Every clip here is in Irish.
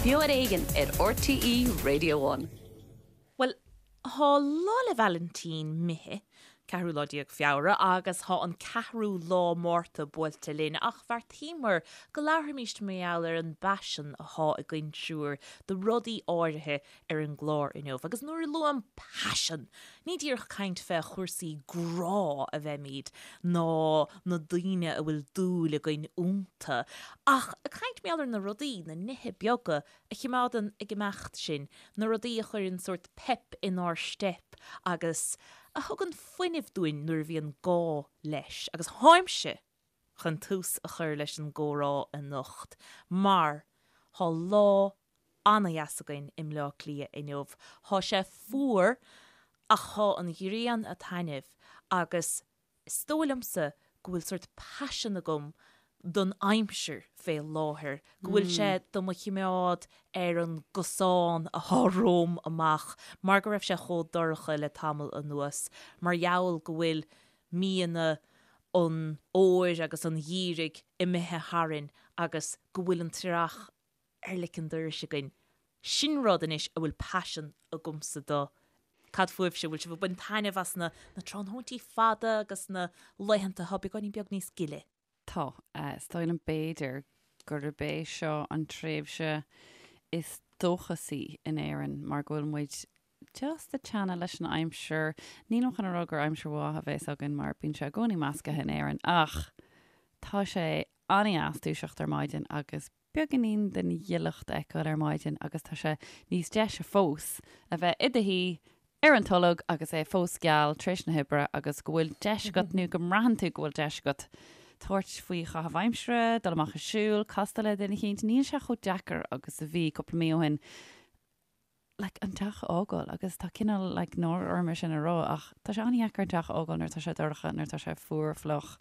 Beo ar Éigean ar RTÉ Radio One. Bhuel, thá Lá 'le Vailintín imithe, ceathrú lá déag Feabhra, agus thá an ceathrú lá Márta buailte linn, ach bheartaíomar go labharfaimíst mar gheall ar an bpaisean athá againn triúr do rudaí áirithe ar an gclár inniu. Agus nuair a luaim paisean, ní díreach caint fé chúrsaí grá a bheimíd, ná na daoine a bhfuil dúil againn iontu, ach ag caint mar gheall ar na rudaí, na nithe beaga a chimeádann ag imeacht sinn, na rudaí a chuireann sórt pep inár steip agus a thugann fuinneamh dúinn nuair a bhíonn gá leis. Agus tháimse chun tús a chur leis an gcomhrá anocht mar thá lá ana-dheas againn i mBleá Cliath inniu. Thá sé fuar ach thá an ghrian a' taitneamh agus is dóigh liomsa go bhfuil sórt paisean agam don aimsir fé láthair, go bhfuil sé do mo chimeád ar an gcosán athá romham amach mar go raibh sé chomh dorcha le tamall anuas, mar gheall go bhfuil míonna an fhómhair agus an gheimhridh imithe tharainn agus go bhfuil an t-earrach ar lic an dorais againn. Sin rud anois a bhfuil paisean agamsa do. Cad fúibhse, bhfuil sibh ag baint taitneamh as na tráthnóintí fada agus na laethanta atá beagáinín beag níos gile? Tá. Is dóigh liom b'fhéidir gurb é seo an tréimhse is dóchasaí in Éirinn mar go bhfuil muid just ag teannadh leis an aimsir. Nílim chun a rá gur aimsir mhaith a bheas againn mar bíonn sé i gcónaí meascaithe in Éirinn ach tá sé an-dheas dúiseacht ar maidin agus beagáinín den ghileacht a fheiceáil ar maidin agus tá sé níos deise fós a bheith i do shuí ar an tolg agus é fós geal tar éis na hoibre agus go bhfuil deis agat nó go mbraitheann tú go bhfuil deis agat tabhairt faoi chaitheamh aimsire, dul amach ag siúl, castáil le duine eicínt. Níl sé chomh deacair agus a bhí cúpla mí ó shin. like, an teach a fhágáil agus tá cineál like, náire orm é sin a rá ach tá sé an-dheacair an teach a fhágáil nuair atá sé dorcha, nuair atá sé fuar fliuch.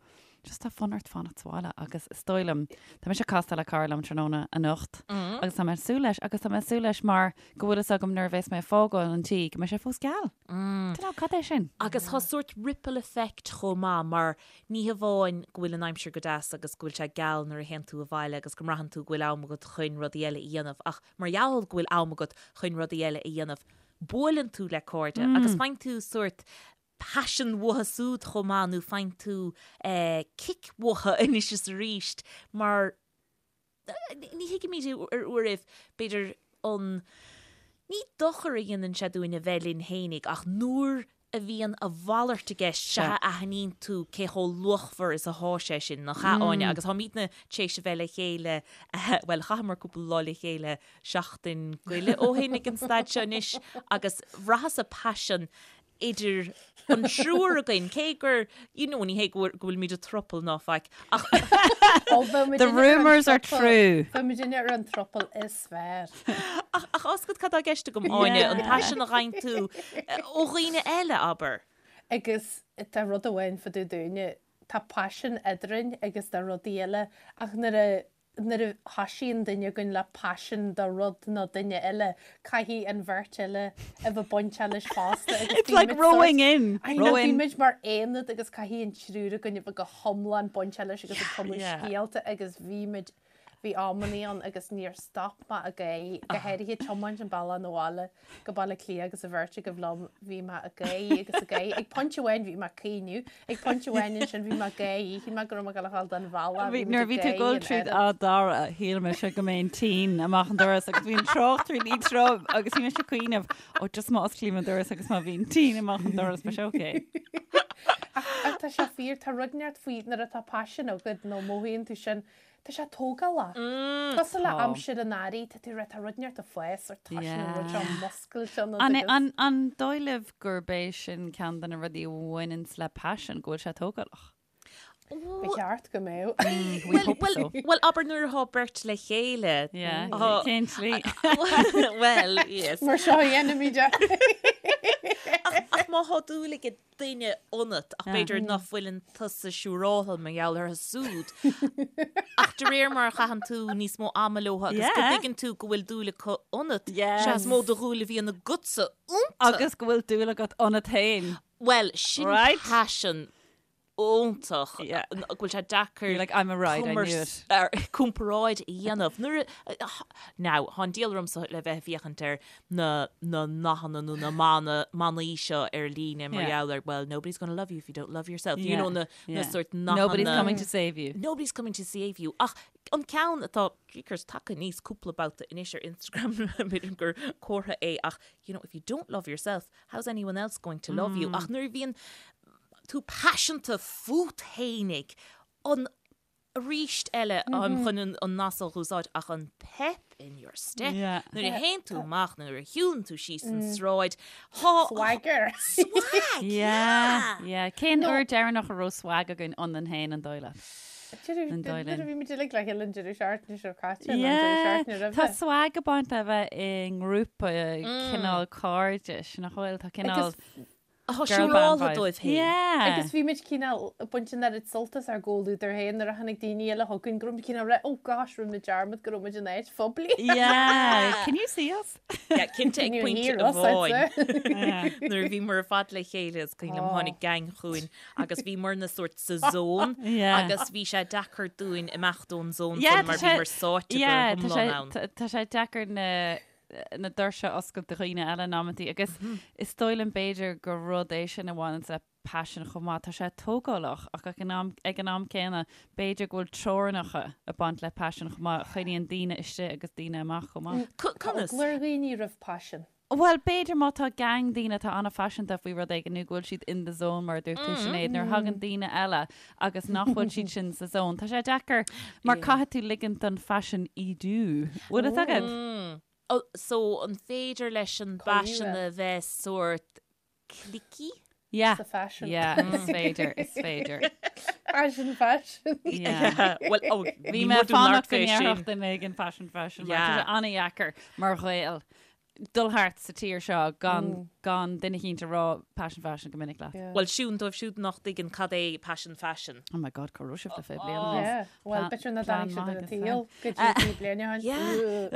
Just tá fonn ort fanacht sa bhaile agus is dóigh liom, tá mise ag castáil le cara liom tráthnóna anocht agus tá mé ag súil leis agus tá mé ag súil leis mar go bhfuil fhios agam nuair a bheas mé ag fágáil an tí go mbeidh sé fós geal. Don't know, cad é sin? Agus tá sórt ripple effect chomh maith mar ní hamháin go bhfuil an aimsir go deas agus go bhfuil sé geal nuair a théann tú abhaile agus go mbraitheann tú go bhfuil am agat chun rudaí eile a dhéanamh ach Mar gheall go bhfuil am agat chun rudaí eile a dhéanamh, buaileann tú le cairde agus faigheann tú sórt paisean uathu súd chomh maith nó faigheann tú cic uathu anois is arís mar ní thuigimid ar uairibh b'fhéidir an ní dochar a dhéanann sé dúinn a bheith linn fhéinig ach nuair a bhíonn a mhalairt i gceist, sea a aithníonn tú cé chomh luachmhar is athá sé sin, nach ea, Áine? Agus táimidne tar éis a bheith le chéile, bhuel, chaitheamar cúpla lá le chéile seachtain go leith ó shin ag an staid seo anois agus bhraitheas-sa paisean idir an triúr againn, cé gur, you know, ní hé go bhfuilimid i throuple ná faic, ach. The rumours are true. Bheadh muidinne ar an throuple is fearr. Ach ach tá a fhios agat cad tá i gceist agam, Áine, an paisean a fhaigheann tú ó dhaoine eile, abair. Agus tá rud amháin fá dtaobh dúinne, tá paisean eadrainn agus do rudaí eile ach nuair a nuair a thoisíonn duine againn le paisean do rud nó duine eile, caithfidh an bheirt eile a bheith bainteach leis fosta agus It's like rowing in, I know, bíonn muid mar aonad agus caithfidh an triúr againn a bheith go hiomlán bainteach leis agus ag cumadh scéalta agus bhí muid Bhí amannaí ann agus níor stop mé ag gáirí, go háirithe tiomáint an bealach 'na bhaile go Baile Átha Cliath agus an bheirt agaibh liom, bhí mé ag gáirí agus ag gáirí. Ag pointe amháin bhí mé ag caoineadh, ag pointe amháin ansin bhí mé ag gáirí, shíl mé go raibh mé ag dul a ghabháil den bhealach, bhí muid Nuair a ag bhí tú ag gáirí dul an tríd oiread. Áth Dara, shíl mise go mbeinn tinn amach an doras agus bhí an trácht really trom agus bhí mise ag cuimhneamh, ó just má osclaím an doras agus má bhíonn tinn amach an doras, beidh sé okay. Ach tá sé fíor, tá rud inteacht faoi nuair atá paisean agat nó mothaíonn tú sin, tá sé tógálach. Cosúil le aimsir an earraigh, tá tú tá rud inteacht ag fás or tá sin an rud seo muscailte ionat An, agus. an, an dóigh libh gurb é sin ceann de na rudaí a bhaineanns le paisean, go bhfuil sé tógálach? Ba cheart go mbeadh. We hope so. Bhuel, abair nuair atá beirt le chéile. Yeah, cén tslí? Well, yes. Mar seo a dhéanaimid é. Ach má thá dúil ag duine ionat, ach b'fhéidir nach bhfuileann tusa siúráilte mar gheall orthu súd. Ach de réir mar a chaitheann tú níos mó ama leo agus go dtuigeann tú go bhfuil dúil acu ionat, sea is mó de dhúil a bhíonn agatsa iontu. Agus go bhfuil dúil agat ionat féin. Bhuel, sin paisean. Iontach go bhfuil sé deacair You're like, I'm a ride, I knew it. comparáid a dhéanamh. Nuair a, now, tá an diabhal ormsa le bheith ag féachaint ar na na nathanna nó na mana, manaí seo ar líne mar gheall ar, well, nobody's gonna love you if you don't love yourself. You know, na, na sort nathanna. Nobody's coming to save you. Nobody's coming to save you. Ach an ceann atá, jeekers, tagtha aníos cúpla babhta anois ar Instagram, b'fhéidir gur comhartha é, ach, you know, if you don't love yourself, how's anyone else going to love you? Ach nuair a bhíonn tú paiseanta fút fhéinig, an arís eile táim chun an nath seo a úsáid ach an pep in your step nuair a théann tú amach nó nuair a shiúlann tú síos an sráid thá Swagger. Swag! Yeah, yeah. Cén uair deireanach a raibh swag againn ionainn féin an dóigh leat? An dóigh linn. Nuair a bhí muid uilig le chéile an deireadh seachtaine seo caite nó an deireadh seachtaine roimhe. Tá swag ag baint le bheith i ngrúpa cineál cairdis, nach bhfuil? Tá cineál Tá siúráltha dóibh féin. Yeah. Agus bhí muid cineál ag baint an oiread sult as ár gcomhluadar féin nuair a tháinig daoine eile chugainn go raibh muid cineál right, oh gosh, rinne muid dearmad go raibh muid in áit phoiblí. Yeah. Can you see us? Yeah, cinnte ag pointe amháin. Nuair a bhíomar ar fad le chéile is cuimhin liom tháinig gang chugainn agus bhíomar na sórt sa zone agus bhí sé deacair dúinn imeacht ón zone sin mar bhíomar sáite go hiomlán ann. Tá sé deacair na na doirse a oscailt do dhaoine eile in amantaí agus is dóigh liom b'fhéidir gur rud é sin a bhaineann le paisean chomh maith. Tá sé tógálach ach ag an am, ag an am céanna b'fhéidir go bhfuil teorainneacha ag baint le paisean chomh maith a choinníonn daoine istigh agus daoine amach chomh maith. Tá eagla ar dhaoine roimh paisean. Bhuel, b'fhéidir má tá gang daoine atá an-phaiseanta faoi rud éigin nó go bhfuil siad in the zone mar a dúirt tú Sinéad, nuair a thagann daoine eile agus nach bhfuil siad sin sa zone. Tá sé deacair mar caithfidh tú ligint don phaisean ídiú. Bhfuil fhios agat? So an féidir leis an bpaisean a bheith sórt cliquey? Yeah. Sa fashion. Yeah, is féidir, is féidir. Fashion, fashion. Yeah. Well, oh, Bhí mé fánach go ndéarfadh duine éigin fashion, fashion. Mar tá sé an-dheacair mar Ghael dul thart sa tír seo gan gan duine eicínt a rá passion fashion go minic leat. Bhuel, siún, dóibh siúd nach dtuigeann cad é passion fashion. Oh my God, cá raibh sibh le 20 bliain anuas? Yeah, well, b'fhéidir nach Plean dtáinig siad maith ar an agus tsaol go dtí 20 bliain ó shin.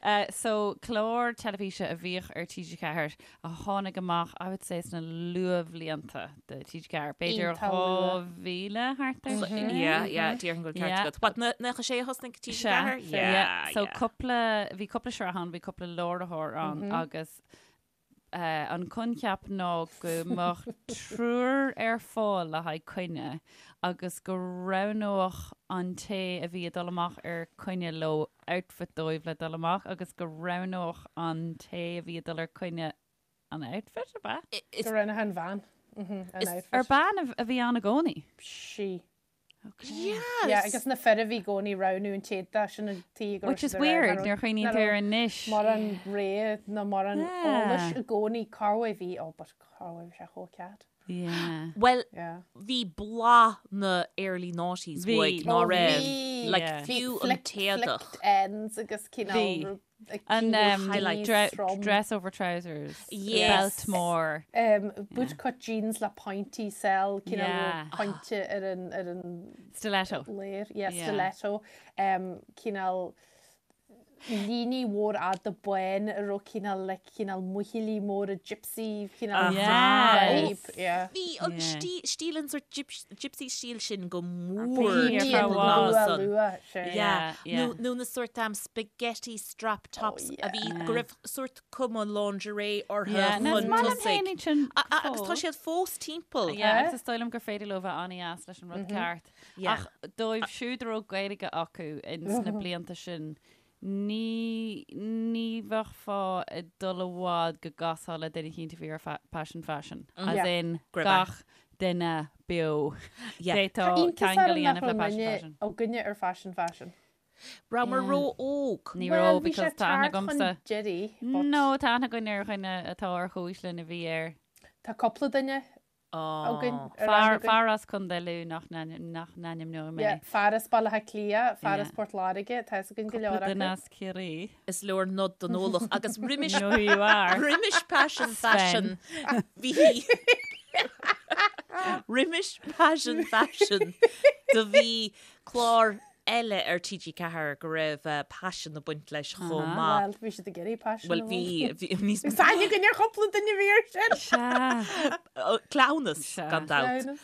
Yeah. So, clár teilifíse a bhíodh ar TG4 a tháinig amach, I would say, sna luathbhlianta de TG4, b'fhéidir 2000 thart ar sin. Yeah, yeah, déarfainn go bhfuil ceart agat. What, 96 a thosnaigh TG4? Yeah, so cúpla, bhí cúpla sraith ann, bhí cúpla láithreoir ann agus an coincheap ná go mbeadh triúr ar fáil le haghaidh coinne agus go roghnódh an té a bhí ag dul amach ar coinne leo outfit dóibh le dul amach agus go roghnódh an té a bhí ag dul ar coinne an outfit, ab ea? Go roghnódh an bhean an outfit. Ar bean a bhí ann i gcónaí? Sí. Okay. Yes. Yeah, agus na fir a bhí i gcónaí roghnú an t-éadach sin an tí go raibh Which is weird, nuair a chuimhníonn tú air anois. Mórán rogha nó mórán eolais i gcónaí corruair bhí, oh but corruair bhí sé chomh cat. Yeah. Bhuel, Yeah. bhí blas na early noughties Bhí. uaidh, ná Oh, raibh? bhí. Like, Yeah. fiú an Flicked- t-éadach. Flicked ends agus cineál Bhí. rud- like, An cineál um, highlight. dre trom. dress over trousers. Yes. Belt mór. Um, bootcut jeans le pointí sell, cineál Yeah. pointe ar an, ar an Stiletto. léir, yeah, Yeah. stiletto. Um, cineál líní mhór fhada bán a raibh cineál like cineál muichillí móra gypsy cineál Yeah. vibe, yeah. Bhí an Yeah. stí- stíl an sort gyps- gypsy stíl sin go mór Bhí Bhí ar an fad. luath san. luath, sure. Yeah. Yeah, yeah. Nó nó na sort um, spaghetti strap tops Oh, a bhí go raibh sort cuma lingerie orthu Yeah, no, is chun maith liom tosaigh. féin iad sin A- a- Agus tá fós. siad fós timpeall. Yeah, agus is dóigh liom gur féidir leo bheith an-deas leis an rud ceart. Yeah. Ach dóibh siúd a raibh Gaeilge acu ins na blianta sin, ní, ní bheifeá ag dul i bhfad go gcasfá le duine eicínt a bhí ar fa- passion fashion. As Yeah. in Go raibh gach duine beo. Yeah. D'fhéadfá Tá iontas ceangal a orm nach dhéanamh le raibh passion muidne fashion. againne ar fashion fashion. Rabhamar Yeah. ró-óg. Ní Well, raibh bhí sé because tá aithne tart chun agamsa. deiridh, but No, tá aithne againn ar dhuine atá ar chomhaois linn a bhí air. Tá cúpla duine againn ar Fear, aithne againn. fear as Contae Lú nach nach n-ainmneoidh mé. Yeah, fear as Baile Átha Cliath, fear as Yeah. Port Láirge, tá fhios againn go leor Cúpla duine acu. as Ciarraí. Is leor nod don eolach agus roimis You know who you are. roimis passion Sven. fashion bhí roimis passion fashion do bhí clár. eile ar TG4 go raibh paisean ag baint leis chomh maith. Bhuel, bhí siad ag iarraidh paisean Bhuel, bhí, bhí, níos Is aithne againn ar chúpla duine a bhí air sin! Sea. Cleamhnas, Sea. gan dabht. Cleamhnas.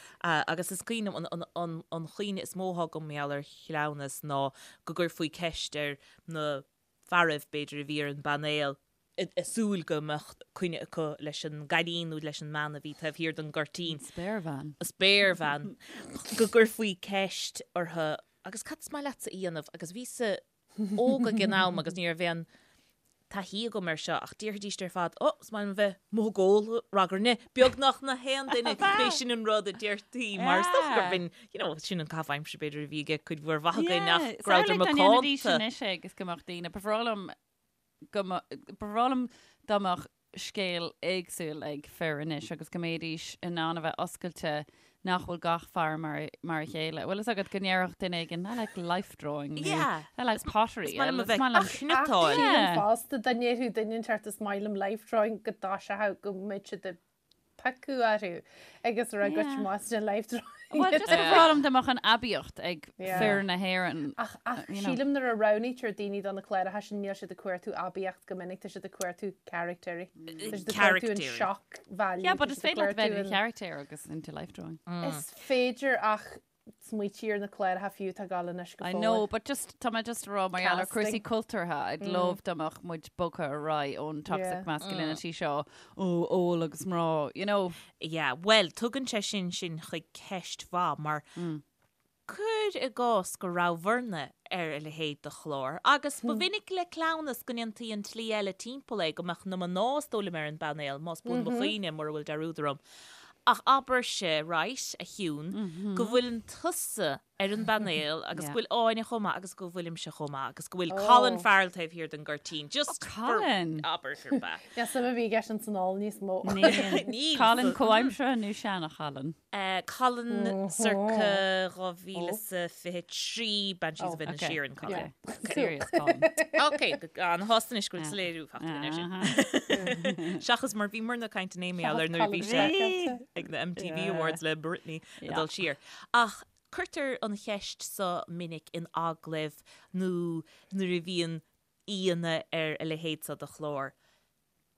Agus is cuimhin liom, an, an, an chuimhne is mó atá agam mar gheall ar chleamhnas ná go gcuirfí ceist ar na fearaibh, b'fhéidir, a bhí ar an bpainéal, ag súil go mbeadh coinne acu leis an gcailín nó leis an mbean a bhí taobh thiar den gcuirtín. An spéirbhean. An spéirbhean. Go gcuirfí ceist orthu, agus cad is maith leatsa a dhéanamh? Agus bhíos-sa óg ag an am agus ní raibh aon taithí agam air seo ach déarfaidís ar fad, oh, is maith liom a bheith amuigh ag ól, ragairne, beagnach na haon duine, b'é sin an rud a deirtí mar is dócha gurb in, you know, sin an caitheamh aimsire b'fhéidir a bhí ag cuid mhór mhaith againn ach go rabhadar Samhlaigh dá ndéanfaidís macánta. anois é agus go mbeadh daoine, ba bhreá liom go mba bhreá liom dá mbeadh scéal éagsúil ag fir anois agus go mbeidís in ann a bheith oscailte nach bhfuil gach fear mar mar a chéile. Bhfuil fhios agat go ndéarfadh duine éigin I like life drawing nó Yeah. I like pottery. Is maith liom a Is bheith maith liom ag cniotáil. Sílim Yeah. fosta dá ndéarfadh duine inteacht is maith liom life drawing go dtoiseochadh go mbeadh siad ag piocadh orthu agus a rá goitse amach as life drawing. Well, just ba bhreá liom dá mbeadh an aibíocht ag Yeah. fir na hÉireann. Ach, ach you know. sílim nuair a roghnaítear daoine do na cláracha sin níl siad ag cuartú aibíocht go minic, tá siad ag cuartú caractéirí. Tá siad ag cuartú an Caractéirí. shock value. Yeah, but tá is siad ag féidir leat bheith cuartú in an- character agus into life drawing. Is féidir ach smaoitigh ar na cláracha fiú atá ag gabháil anois go I fóill. know, but just, tá mé just a rá mar gheall ar cúrsaí Casting. cultúrtha, I'd love dá mbeadh muid bogtha ar aghaidh ón toxic Yeah. masculinity seo, ó, ól agus mná, you know. Yeah, bhuel, tugann sé sin sinn chuig ceist mhaith mar cuir i gcás go rabhabhairne ar a leithéid de chlár agus ba mhinic le cleamhnas go ndéantaí an tslí eile timpeall é, go mbeadh na mná is dóigh liom ar an bpainéal, más buan mo chuimhne, mura bhfuil dearúd orm. Ach abairse, right, a Shiún, go bhfuileann tusa ar an bpainéal agus go bhfuil Áine chomh maith agus go bhfuilimse chomh maith agus go bhfuil Colin Farrell taobh thiar den gcuirtín. Just for Colin! abair gurb ea. Níl suim ar bith i gceist san ól níos mó. Níl. Níl. Colin comhaimseartha nó seana-Cholin? Colin circa 2023, Banshees of Inisherin, Colin. Okay. Serious Colin. Ok, an-shásta anois go bhfuil soiléiriú faighte againn air sin. Seachas mar bhíomarna ag caint inné mar gheall ar nuair a bhí sé ag na MTV Awards le Britney ag dul siar. Ach cuirtear an cheist so minic in agallaimh nó nuair a bhíonn aíonna ar a leithéid so de chlár.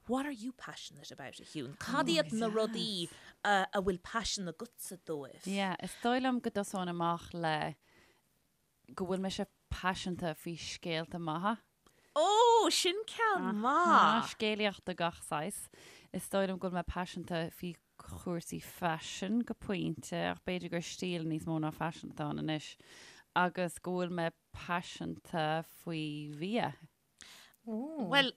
What are you passionate about, a Shiún? Cad iad na rudaí a bhfuil paisean agatsa dóibh? Yeah, is dóigh liom go dtosóinn amach le go bhfuil mise paiseanta faoi scéalta maithe. Ó, sin ceann maith! Scéalaíocht de gach saghas. Is dóigh liom go bhfuil mé paiseanta faoi chúrsaí faisin go pointe, ach b'fhéidir gur stíl níos mó ná faisean atá ann anois, agus go bhfuil mé paiseanta faoi bhia. Bhuel,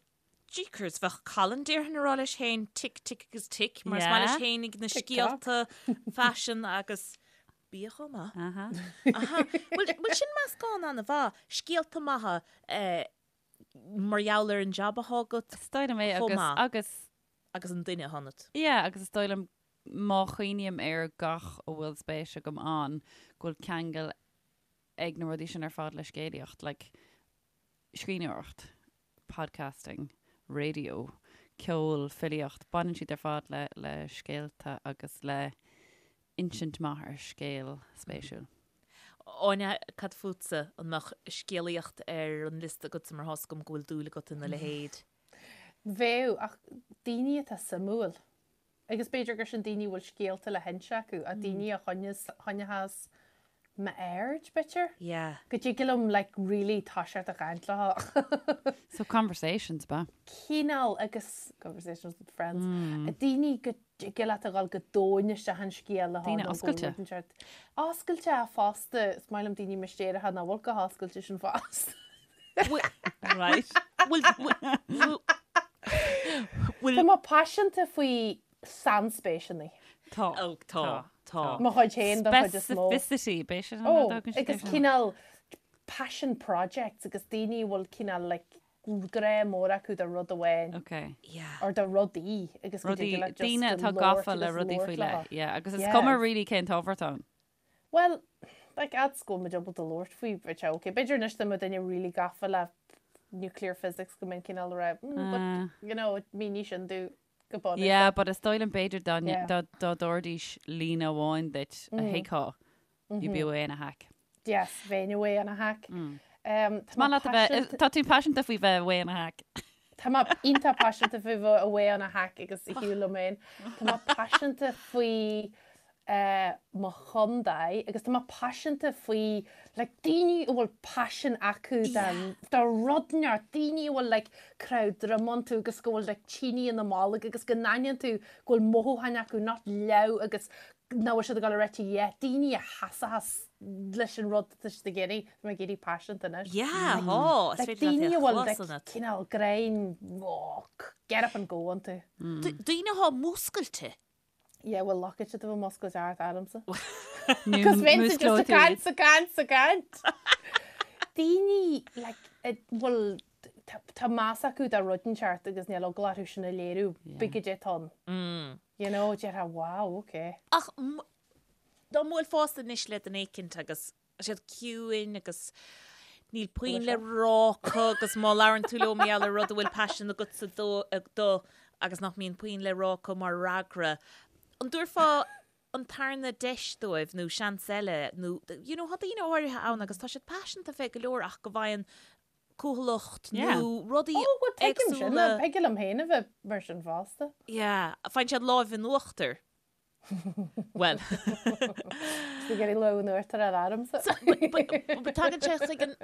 jeekers, bheadh Colin déarfainn ag rá leis féin tick, tick agus tick, mar is maith leis féinig na scéalta faisin agus bia chomh maith. Aha. Aha. Bhuel, bhuel sin meascán an-mhaith, scéalta maithe eh, mar gheall ar an jab atá agat Is dóigh liom é chomh agus, maith. agus, agus an duine atá ionat. yeah, agus is dóigh liom má chuimhním ar gach a bhfuil spéis agam ann, go bhfuil ceangal ag na rudaí sin ar fad le scéalaíocht, like, scríbhneoireacht, podcasting, raidió, ceol, filíocht, baineann siad ar fad le le scéalta agus le insint maith ar scéal spéisiúil. Áine, cad fútsa? An mbeadh scéalaíocht ar an liosta agatsa mar tá's agam go bhfuil dúil agat ina leithéid? Bheadh, ach daoine atá suimiúil. Agus b'fhéidir gur sin daoine a bhfuil scéalta le hinse acu, ach daoine a choinneochas m'aird, b'fhéidir? Yeah. Go dtig liom like really toiseacht a chaint leo. So conversations, ba? Cineál agus conversations with friends. Daoine go dtig leat a dhul go domhain isteach an scéal leo. Daoine oscailte. Oscailte fosta, is maith liom daoine mistéireacha nach bhfuil chomh hoscailte sin fosta. Right. Bhfuil, bhfuil, bhfuil, Tá mé paiseanta faoi sainspéiseanna. Tá. Ó, tá, tá. Mo chuid féin don chuid is mó. Specificity, b'é sin an Ó, rud a thugann siad agus air sin. cineál passion projects agus daoine a bhfuil cineál like grá mór acu do rud amháin Ok. Yeah. or do rudaí agus go Rudaí, dtig leat just daoine go atá labhairt gafa le agus rudaí labhairt faoi leo. leith. Yeah, agus is Yeah. cuma really cén t-ábhar atá ann. Bhuel, like, fhad is go bhfuil muid ábalta labhairt faoi, bheadh sé ok. B'fhéidir anois dá mbeadh duine really gafa le nuclear physics go mbeinn cineál ag rá, mm, but, you know, mínigh sin domh go bunúsach. Yeah, but is dóigh liom b'fhéidir dá Yeah. dá dá dtabharfaidís líne amháin duit a thuigfeá, you'd be away in a hack. Yes, bheinn away on a hack. Tá maith leat a bheith, tá tú paiseanta faoi bheith away on a hack. Tá mé iontach paiseanta faoi bheith away on a hack agus ar shiúl liom féin. Tá mé paiseanta faoi mo chontae agus tá mé paiseanta faoi like daoine a bhfuil paisean acu do rud inteacht, daoine a bhfuil like croitheadh droim iontu agus go bhfuil like tine ina mbolg agus go n-aithníonn tú go bhfuil mothúcháin acu nach leamh agus nach bhfuil siad ag dul a rá yeah, daoine a sheasfas leis an rud atá siad ag iarraidh, tá mé ag éirí paiseanta anois. Yeah, thá, is Like féidir leat daoine é a a bhfuil chlos like ionat. cineál greim, oh, get up and go iontu. Daoine athá múscailte. Yeah, bhuel loiceann siad a bheith múscailte thart ormsa. Nó Cos bheinnse just músclóidh ag tú iad. caint, ag caint, ag caint. Daoine like a bhfuil tá tá meas acu do rud inteacht agus níl eagla orthu sin a léiriú, pé goidé atá ann. You know, déarfá wow, okay. Ach dá mbuailfeása anois le duine éicint agus siad ciúin agus níl puinn le rá acu agus má labhrann tú leo mar gheall ar rud a bhfuil paisean agatsa dó dó agus nach mbíonn puinn le rá acu mar fhreagra, an dtabharfá an tarna deis dóibh nó seans eile nó you know, tá daoine áirithe ann agus tá siad paiseanta fé go leor ach go bhfaigheann cúthaileacht nó rudaí Ó, bhuel, tuigim sin, éagsúla. thig liom féin a bheith mar sin fosta. Yeah, faigheann siad láimh in uachtar. Bhuel. Is ag iarraidh lámh in uachtar a fháil ormsa. But tagann sé chuig an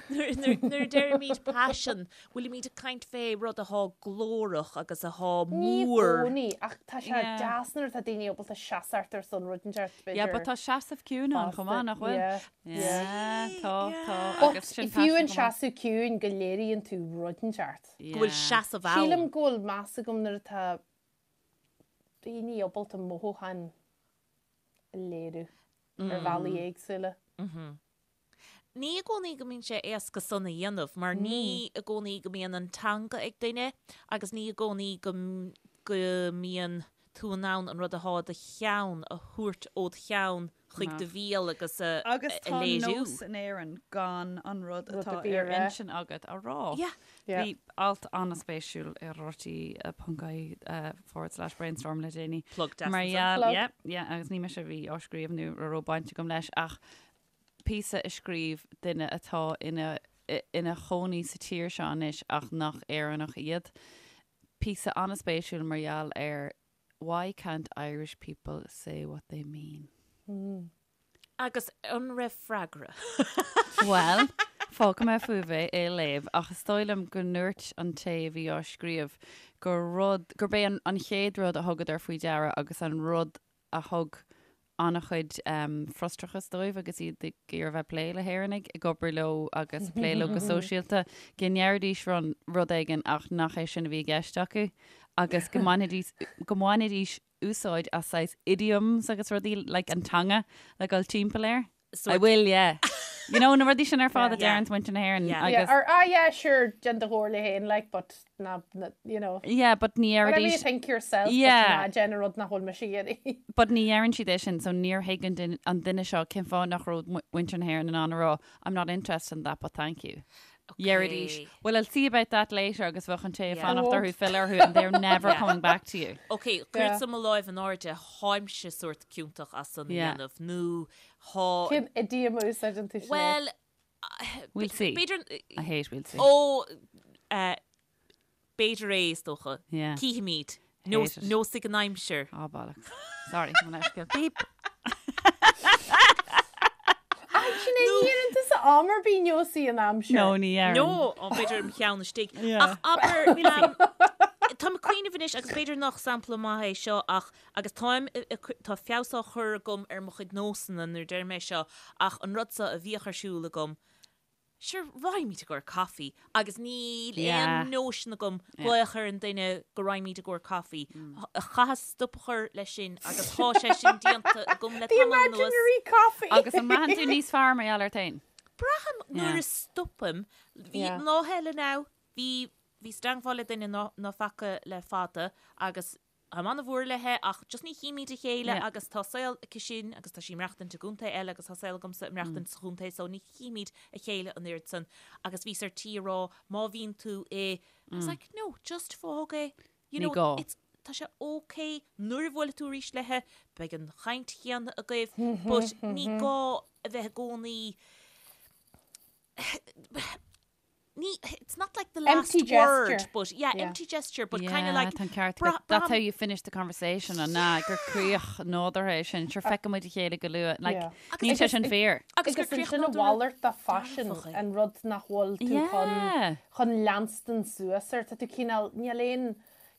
nuair a deirimid paisean, bhfuilimid ag caint fé rud athá glórach agus athá Ní i mór. gcónaí, ach tá sé deas nuair atá daoine ábalta seasamh ar son rud inteacht, b'fhéidir. Yeah, but tá seasamh ciúin ann chomh maith, nach bhfuil? Yeah. Yeah, tá, tá. But Agus sin fiú paisean an chomh maith. seasamh ciúin go léiríonn tú rud inteacht. Go bhfuil seasamh ann. Sílim go bhfuil meas agam nuair atá daoine ábalta mothúcháin a léiriú ar bhealaí éagsúla. Ní i gcónaí go mbíonn sé éasca san a dhéanamh mar ní i gcónaí go mbíonn an teanga ag duine agus ní i gcónaí go go mbíonn tú in ann an rud athá i do cheann a thabhairt ód cheann chuig do bhéal agus a Agus tá léiriú. nós in Éirinn gan an rud Rud atá a bhí ar ar intinn agat a rá. Yeah. Yeah. Bhí alt an-spéisiúil ar rte ponc ie forward slash brainstorm le déanaí. Plug deas Mar ansan. gheall, Plug. yeah, yeah, agus ní mise a bhí á scríobh nó a raibh baint agam leis ach píosa a scríobh duine atá ina ina chónaí sa tír seo anois ach nach Éireannach iad. Píosa an-spéisiúil mar gheall ar Why can't Irish people say what they mean? Agus an raibh freagra? Bhuel, fágfaidh mé fúibh é a léamh, ach is dóigh liom go ndúirt an té a bhí á scríobh gur rud, gurb é an chéad rud a thugadar faoi deara agus an rud a thug an-chuid frustrachas dóibh agus iad ag iarraidh bheith ag plé le hÉireannaigh, ag obair leo agus plé leo go sóisialta, go ndeiridís rud éigin ach nach é sin a bhí i gceist acu agus go mbainfidís, go mbainfidís úsáid as saghas idioms agus rudaí like an teanga le dul timpeall air. I will, yeah. You know, na rudaí sin ar fad a deireann muintir na hÉireann Yeah. Yeah, agus or ah yeah, sure, déan do chomhairle féin, like, but ná, ná, you know. Yeah, but ní Whatever you deiridís think yourself, Yeah. but ná déan an rud nach bhfuil mise ag iarraidh. But ní dheireann siad é sin, so níor thuig an duine, an duine seo cén fáth nach raibh muintir na hÉireann in ann a rá, I'm not interested in that, but thank you. Dheiridís, well, I'll see about that later agus bheadh an té ag Yeah. fanacht orthu filleadh orthu and they're never Yeah. coming back to you. Ok, cuirfeadsa mo láimh in airde, tháimse sórt ciontach as san a Yeah. dhéanamh, nó thá... Cén idiom a úsáideann tú Sinéad? Well, We'll see. B'fhéidir... I hate we'll see. Ó, eh, b'fhéidir é, is dócha. Yeah. Cífimid. Hate it. Neosfaidh an aimsir. Ah, bollocks. Sorry, mo leithscéal. Beep. Sinéad, ní dheireann tusa am ar bith neosfaidh an aimsir. No, ní dheireann. No, ó, b'fhéidir im cheann istigh. Yeah. Ach abair, um, táim ag cuimhneamh anois agus b'fhéidir nach sampla maith é seo ach agus táim, tá feabhas á chur agam ar mo chuid nósanna nuair a deirim é seo ach an rud seo a bhíodh ar siúl agam, sure, raghaimid i gcomhair caife agus níl Yeah. aon nóisean agam glaoch ar an duine go raghaimid i gcomhair caife. Chaitheas stop a chur leis sin agus tá sé sin déanta agam le The tamall anuas. imaginary coffee! Agus an mbraitheann tú níos fearr mar gheall air féin? Braithim nuair Yeah. a stopaim, bhí Yeah. lá eile now, bhí bhíos i dteangmháil le duine ná ná faca le fada agus Táim an-mhór léithe ach just ní chímid a chéile Yeah. agus tá saol aici sin agus tá sí ag maireachtaint i gcontae eile agus tá saol agamsa ag maireachtaint sa chontae so ní chímid a chéile an oiread san agus bhíos ar tí a rá má bhíonn tú i I was like no just fág é you Ní know gá. it's tá sé ok nuair a bhuailfidh tú arís léithe, beidh an chaint chéanna agaibh, but ní gá a bheith i gcónaí ní, it's not like the last Empty word, gesture. but yeah, Yeah. empty gesture, but Yeah, kind of like tá an ceart bra- agat. That's braithim- how you finish the conversation an ná gur críoch nádúrtha é sin. Sure feicfidh muid a chéile go luath. Like, Yeah. níl sé sin fíor. Agus gur Agus críoch ansin a nádúrtha mhalairt de phaisean dearfach é. an rud nach bhfuil tú chun Yeah. chun leanstan suas air. Tá tú cineál, níl aon,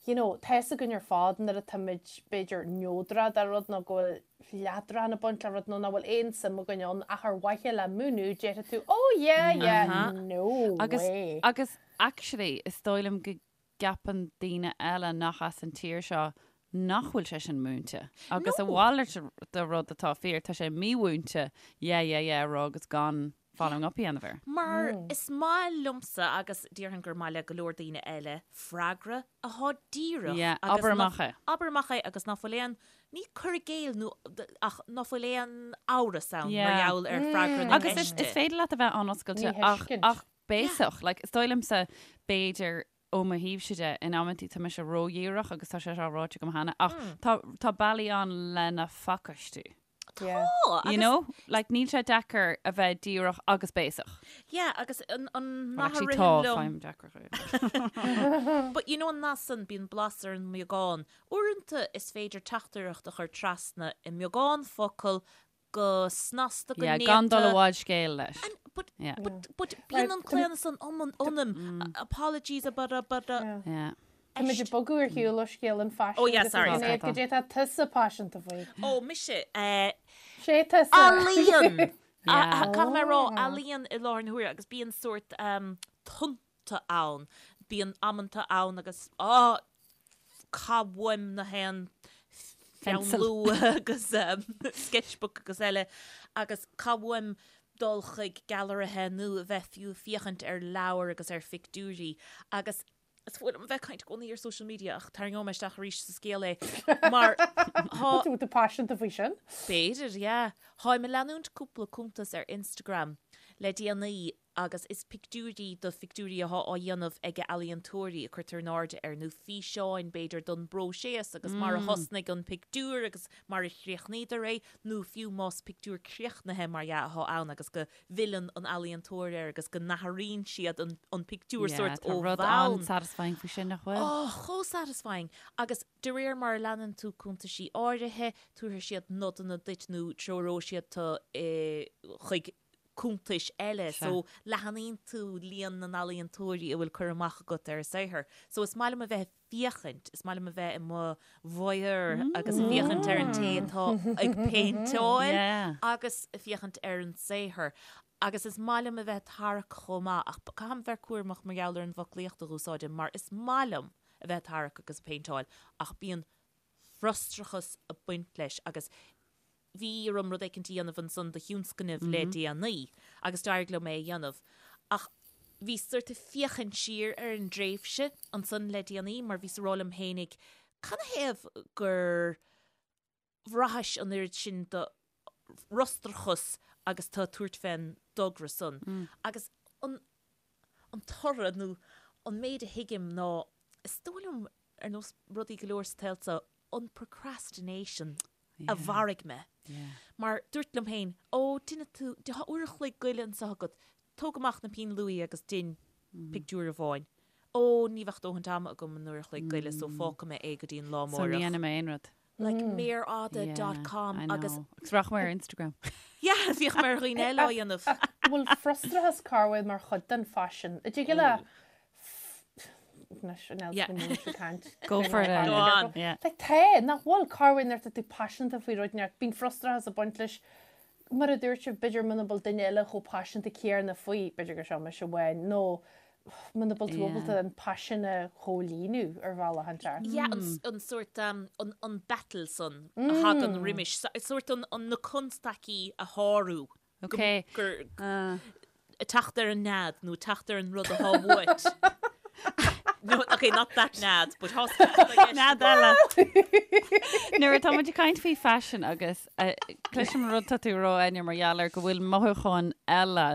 you know, tá fhios againn ar fad nuair atáimid b'fhéidir neodrach de rud nó go bhfuil leadrán ag baint le rud nó nach bhfuil aon suim againn ann ach ar mhaithe le múineadh déarfaidh tú oh yeah yeah Uh-huh. no Agus, way. agus actually is dóigh liom go gceapann daoine eile nach as an tír seo nach bhfuil sé sin múinte. Agus a No. mhalairt de rud atá fíor, tá sé mímhúinte yeah yeah yeah a rá agus gan following up a dhéanamh air. Mar is maith liomsa agus déarfainn gur maith le go leor daoine eile freagra athá díreach Yeah, agus abair ná- amach é. Abair amach é agus ná fuil aon, ní cur i gcéill nó ach ná fuil aon amhras ann mar Yeah. gheall ar freagra na Agus is, ceiste. is féidir leat a bheith an-oscailte Ní ach, thuiscint. ach béasach. Like, is dóigh liomsa b'fhéidir ó mo thaobhse de in amantaí tá mise ródhíreach agus tá sé seo ráite agam cheana ach tá, tá bealaí ann lena phacáistiú. Yeah. Tá, You agus know? Like, níl sé deacair a bheith díreach agus béasach. yeah, agus an, an Well, nath a actually, ritheann tá, liom faighim deacrach é. But you know an nath san, bíonn blas ar an mbeagán. Uaireanta is féidir teachtaireacht a chur trasna i mbeagán focal go snasta go Yeah, néata. gan dul i bhfad scéil leis. And, but, Yeah. but, but bíonn an claonadh san ionam, ionam. Apologies, but, but, Yeah. Yeah. Tá muid ag bogadh ar shiúl ó scéal an phaisin Oh, yeah, agus sorry, an sorry. Sinéad, Goidé tá tusa paiseanta faoi. Ó, mise, eh, Sé tusa. Ealaíon! Yeah. Caithfidh mé a rá, ealaíon i láthair na huaire agus bíonn sórt um, tonnta ann. Bíonn amanta ann agus á caith uaim na haon pheann Pencil. luaidhe agus um, sketchbook agus eile agus caith uaim dul chuig gailearaithe nó a bheith fiú ag féachaint ar leabhair agus ar phictiúirí agus Is fuath liom a bheith ag caint i gcónaí ar social media ach tarraingeoidh mé isteach arís sa scéal é mar tá Tú tú paiseanta faoi sin? B'fhéidir, yeah. Táim ag leanúint cúpla cuntas ar Instagram le déanaí agus is pictiúirí do phictiúirí atá á dhéanamh ag ealaíontóirí a cuirtear in airde air nó físeáin b'fhéidir don bpróiseas agus mar a thosnaigh an pictiúr agus mar a chríochnaíodar é nó fiú más pictiúr críochnaithe mar dhea atá ann agus go bhfilleann an ealaíontóir air agus go n-athraíonn siad an an pictiúr Yeah, sórt tá ó rud bhonn. an-satisfying faoi sin, nach bhfuil? Oh, chomh satisfying! Agus de réir mar a leanann tú cuntaisí áirithe, tabharfaidh siad nodanna duit nó treoróidh siad tú chuig cuntais eile. Sea. So leathanaíonn tú líon na n-ealaíontóirí a bhfuil cur amach agat ar a saothar. So is maith liom a bheith ag féachaint, is maith liom a bheith i mo voyeur agus ag féachaint ar an té atá ag péinteáil Yeah. agus ag féachaint ar an saothar. Agus is maith liom a bheith ag tarrac chomh maith, ach caithim bheith cúramach mar gheall ar an bhfoclaíocht a dh'úsáidim mar is maith liom a bheith ag tarrac agus ag péinteáil ach bíonn frustrachas ag baint leis agus bhí orm rud éicint a dhéanamh ansan do thionscnamh le déanaí agus d'éirigh liom é a dhéanamh ach bhí sort ag féachaint siar ar an dtréimhse ansan le déanaí mar bhíos ag rá liom fhéinig canathaobh gur bhraitheas an oiread sin de fhrustrachas agus tú ag tabhairt fén dtogra san agus an an toradh nó an méid a thuigim ná is dóigh liom ar nós rudaí go leor sa tsaol seo an procrastination a mharaigh mé. Mar dúirt liom féin, ó, déanfaidh tú, tá uair a chloig goile anseo agat, tóg amach na pinn luaidhe agus dein pictiúr amháin. Ó, ní bheadh dóthaint ama agam an uair a chloig goile so fágfaidh mé é go dtí an lá So ní amárach. dhéanfaidh mé aon rud. Like méar fhada dot com I agus know. Agus rachaidh mé ar Instagram. yeah, bhíodh mé ar dhaoine eile á dhéanamh. Bhfuil frustrachas corruair mar chuid den phaisean? An dtig le Anois, an Yeah. go mó sa caint. Go for it, Go on. Yeah. Like tá, nach bhfuil corruair nuair atá tú paiseanta faoi rud inteacht, bíonn frustrachas ag baint leis. Mar a dúirt sibh, b'fhéidir muna bhfuil duine eile chomh paiseanta céanna faoi, b'fhéidir gur seo mise amháin, nó muna bhfuil tú Yeah. ábalta an paisean a chomhlíonadh ar bhealach inteacht. Yeah, an, an sórt, um, an, an battle san a thagann roimis, sórt an, an, na constaicí a shárú. Ok. Gur, Uh, teacht ar an nead nó teacht ar an rud atá uait. No, okay, not that nead, but thá Nead eile. Nuair atá muid ag caint faoi phaisean agus eh, cloisim an rud tá tú a rá Áine mar gheall ar go bhfuil mothúcháin eile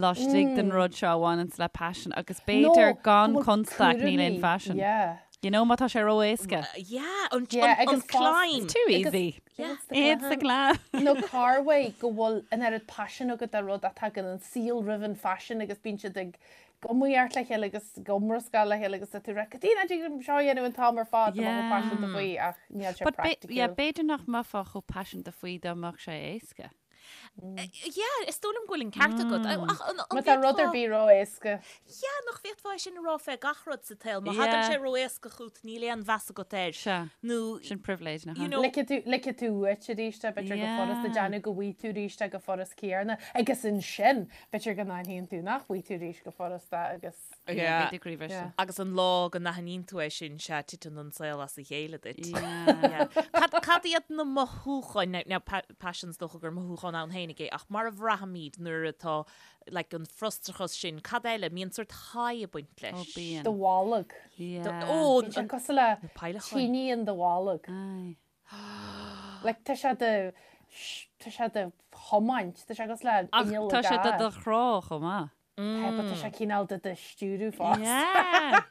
laistigh den rud seo a bhaineanns le paisean agus b'fhéidir No, gan go bhfuil constaic níl aon cúraimí, phaisean. Yeah. You know, má tá sé ró-éasca. Yeah, an, Yeah, an, an agus fás- climb. It's too easy. Yeah. It's the climb. Nó corruair go bhfuil an oiread paisin agat do rud ach tagann an saol roimh an phaisean agus bíonn siad ag iomaíocht le chéile agus ag iomrascáil le chéile agus tá tú ag rá, Cad é nach dtig liom seo a dhéanamh an t-am ar fad, tá mé chomh paiseanta faoi ach níl sé But praiticiúil. yeah, b'fhéidir nach mbeifeá chomh paiseanta faoi dá mbeadh sé éasca. Yeah, is dóigh liom go bhfuil an ceart agat. Ach an Má tá rud ar bhféadfá- bith ró-éasca. Yeah, nach bhféadfá é sin a rá fé gach rud sa tsaol. Má thagann Yeah. sé ró-éasca chugat, níl aon mheas agat air. Sea. Nó, Sin pribhléid, nach You ea? know- Ligfidh tú, ligfidh tú uait arís é, b'fhéidir go furasta Yeah. déanamh go bhfaighidh tú arís é go furast céanna. Agus ansin, b'fhéidir go n-aithníonn tú nach bhfaighidh tú arís go furasta agus. Yeah. B'fhéidir go raibh Yeah. agus an lá go n-aithníonn tú é sin, sea, titeann an saol as a chéile duit. Yeah. Yeah. Cad, cad iad na mothúcháin, now, now, pa, paisean is dócha gur mothúchán ann féinig é, ach mar a bhraithimid nuair atá, like, an frustrachas sin, cad eile, mbíonn sórt high ag baint leis. Ó, bíonn. Do bholg. Yeah. Ó, Bíonn sé cosúil le na peidhleacháin. tine in do bholg. Aye. Like, tá sé do, tá sé do thiomáint, tá sé cosúil le Ach inneall tá i sé do gcarr. do chrá chomh maith. Tá, but tá sé cineál do do stiúradh fosta. Yeah.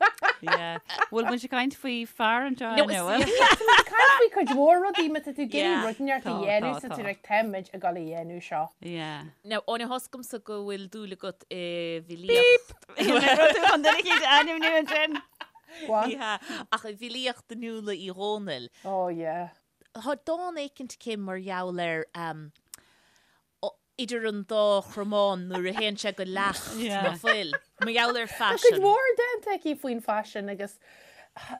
Yeah. Bhfuil muid ag caint faoi fear anseo No, inniu, is- bhfuil? Tá caint faoi cuid mhór rudaí má tá tú ag iarraidh Yeah. rud inteacht a Tá, dhéanamh tá, sa tá. tú ag táimid ag dul a dhéanamh seo. Yeah. Now, Áine, tá a fhios agamsa go bhfuil dúil agat i bhfilíocht. Rud tú chun duine eicínt a ainmniú ansin. Go on. Yeah, ach i bhfilíocht Fhionnuala Uí Dhónaill. Oh yeah. Tá dán éicint aici mar gheall ar um, idir an dá chromán nuair a théann sé go leacht na fuil. Mar gheall ar Tá cuid phaisean. mhór déanta aici faoin phaisean agus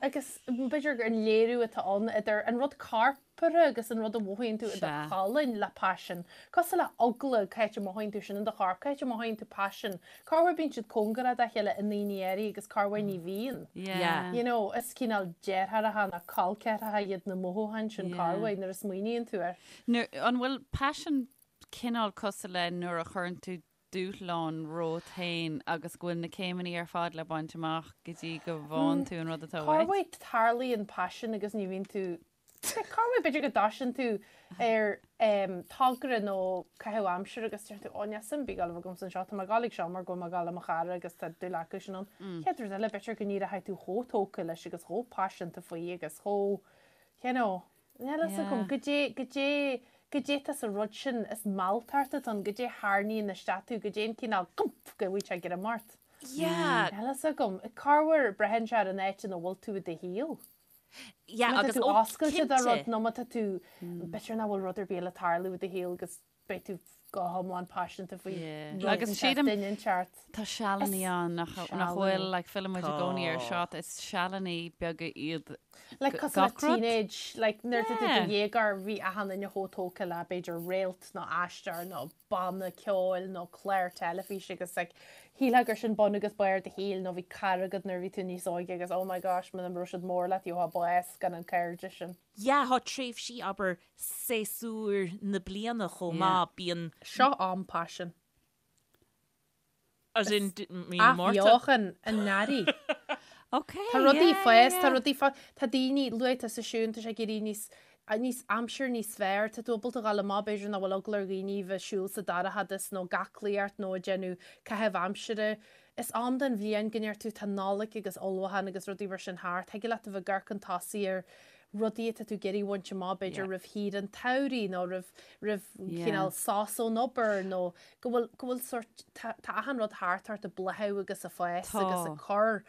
agus b'fhéidir gur an léiriú atá ann idir an rud corpartha agus an rud a mhothaíonn tú i do cholainn le paisean. Cosúil le eagla, cá háit a mothaíonn tú sin in do chorp, cá háit a mothaíonn tú paisean. Corruair bíonn siad cóngarach dá chéile i ndaoine áirithe agus corruair ní bhíonn. You know, is cineál deartháireacha nó col ceathracha iad na mothúcháin sin corruair nuair a smaoiníonn tú air. Nuair, an bhfuil paisean cineál cosúil le nuair a chuireann tú dúshlán romhat féin agus go bhfuil na céimeanna ar fad le baint amach go dtí go bhfaigheann tú an rud atá uait? Corruair tarlaíonn paisean agus ní bhíonn tú Corruair b'fhéidir go dtosaíonn tú ar togra nó caitheamh aimsire agus deir tú ó níl suim ar bith ag dul agamsa anseo, tá mé ag dul ag seo mar go bhfuil mé ag dul le mo chara agus tá dúil acu sin ann. Chéad rud eile b'fhéidir go n-éireoidh tú chomh tógtha leis agus chomh paiseanta faoi agus chomh, you know, Níl fhios agam, goidé, goidé, goidé atá sa rud sin is mealltacht atá ann, goidé a tharraingíonn isteach tú, goidé an cineál gump go bhfuil sé ag greim ort. Yeah. Níl fhios agam. Corruair braitheann sé ar an áit ina bhfuil tú i do shaol. Yeah, Má tá agus tú ó, oscailte do rud cinnte. nó má tá tú, b'fhéidir nach bhfuil rud ar bith le tarlú i do shaol agus beidh tú go hiomlán paiseanta faoi Yeah. rud Agus inteacht, sílim- duine inteacht. Tá sealannaí ann nach Is nach bhfuil sealannaí. like filleann muid i gcónaí ar Tá. seo, is sealannaí beaga iad Like cosúil le gach rud. teenage, like nuair atá tú i Yeah. do dhéagóir bhí achan duine chomh tógtha le b'fhéidir réalt nó aisteoir nó banna ceoil nó clár teilifíse agus like shílfeá gur sin bun agus barr do shaoil nó bhí cara agat nuair a bhí tú níos óige agus oh my gosh muna raibh siad mór leat gheofá bás gan an cairde sin. Yeah, tá tréimhsí abair séasúir na bliana chomh maith, bíonn. Seo am paisin. As in, mí na Márta. Athbheochan an earraigh. Ok, Tá rudaí yeah, fás, yeah. tá rudaí fás, tá daoine, luaigh tusa Siún, tá sé ag éirí níos, níos aimsir níos fearr, tá tú ábalta dhul amach b'fhéidir nach bhfuil eagla ar dhaoine bheith siúl sa dorchadas nó ag aclaíocht nó ag déanamh caitheamh aimsire. Is am den bhliain go ndeir tú tá Nollaig agus ullmhúchán agus rudaí mar sin thart, thig leat a bheith ag amharc chun tosaigh ar rudaí atá tú ag iarraidh a bhaint amach b'fhéidir roimh shaoire an tsamhraidh nó roimh roimh cineál sos ón obair nó go bhfuil go bhfuil sórt tá tá achan rud thart ort ag bláthú agus ag fás agus ag cur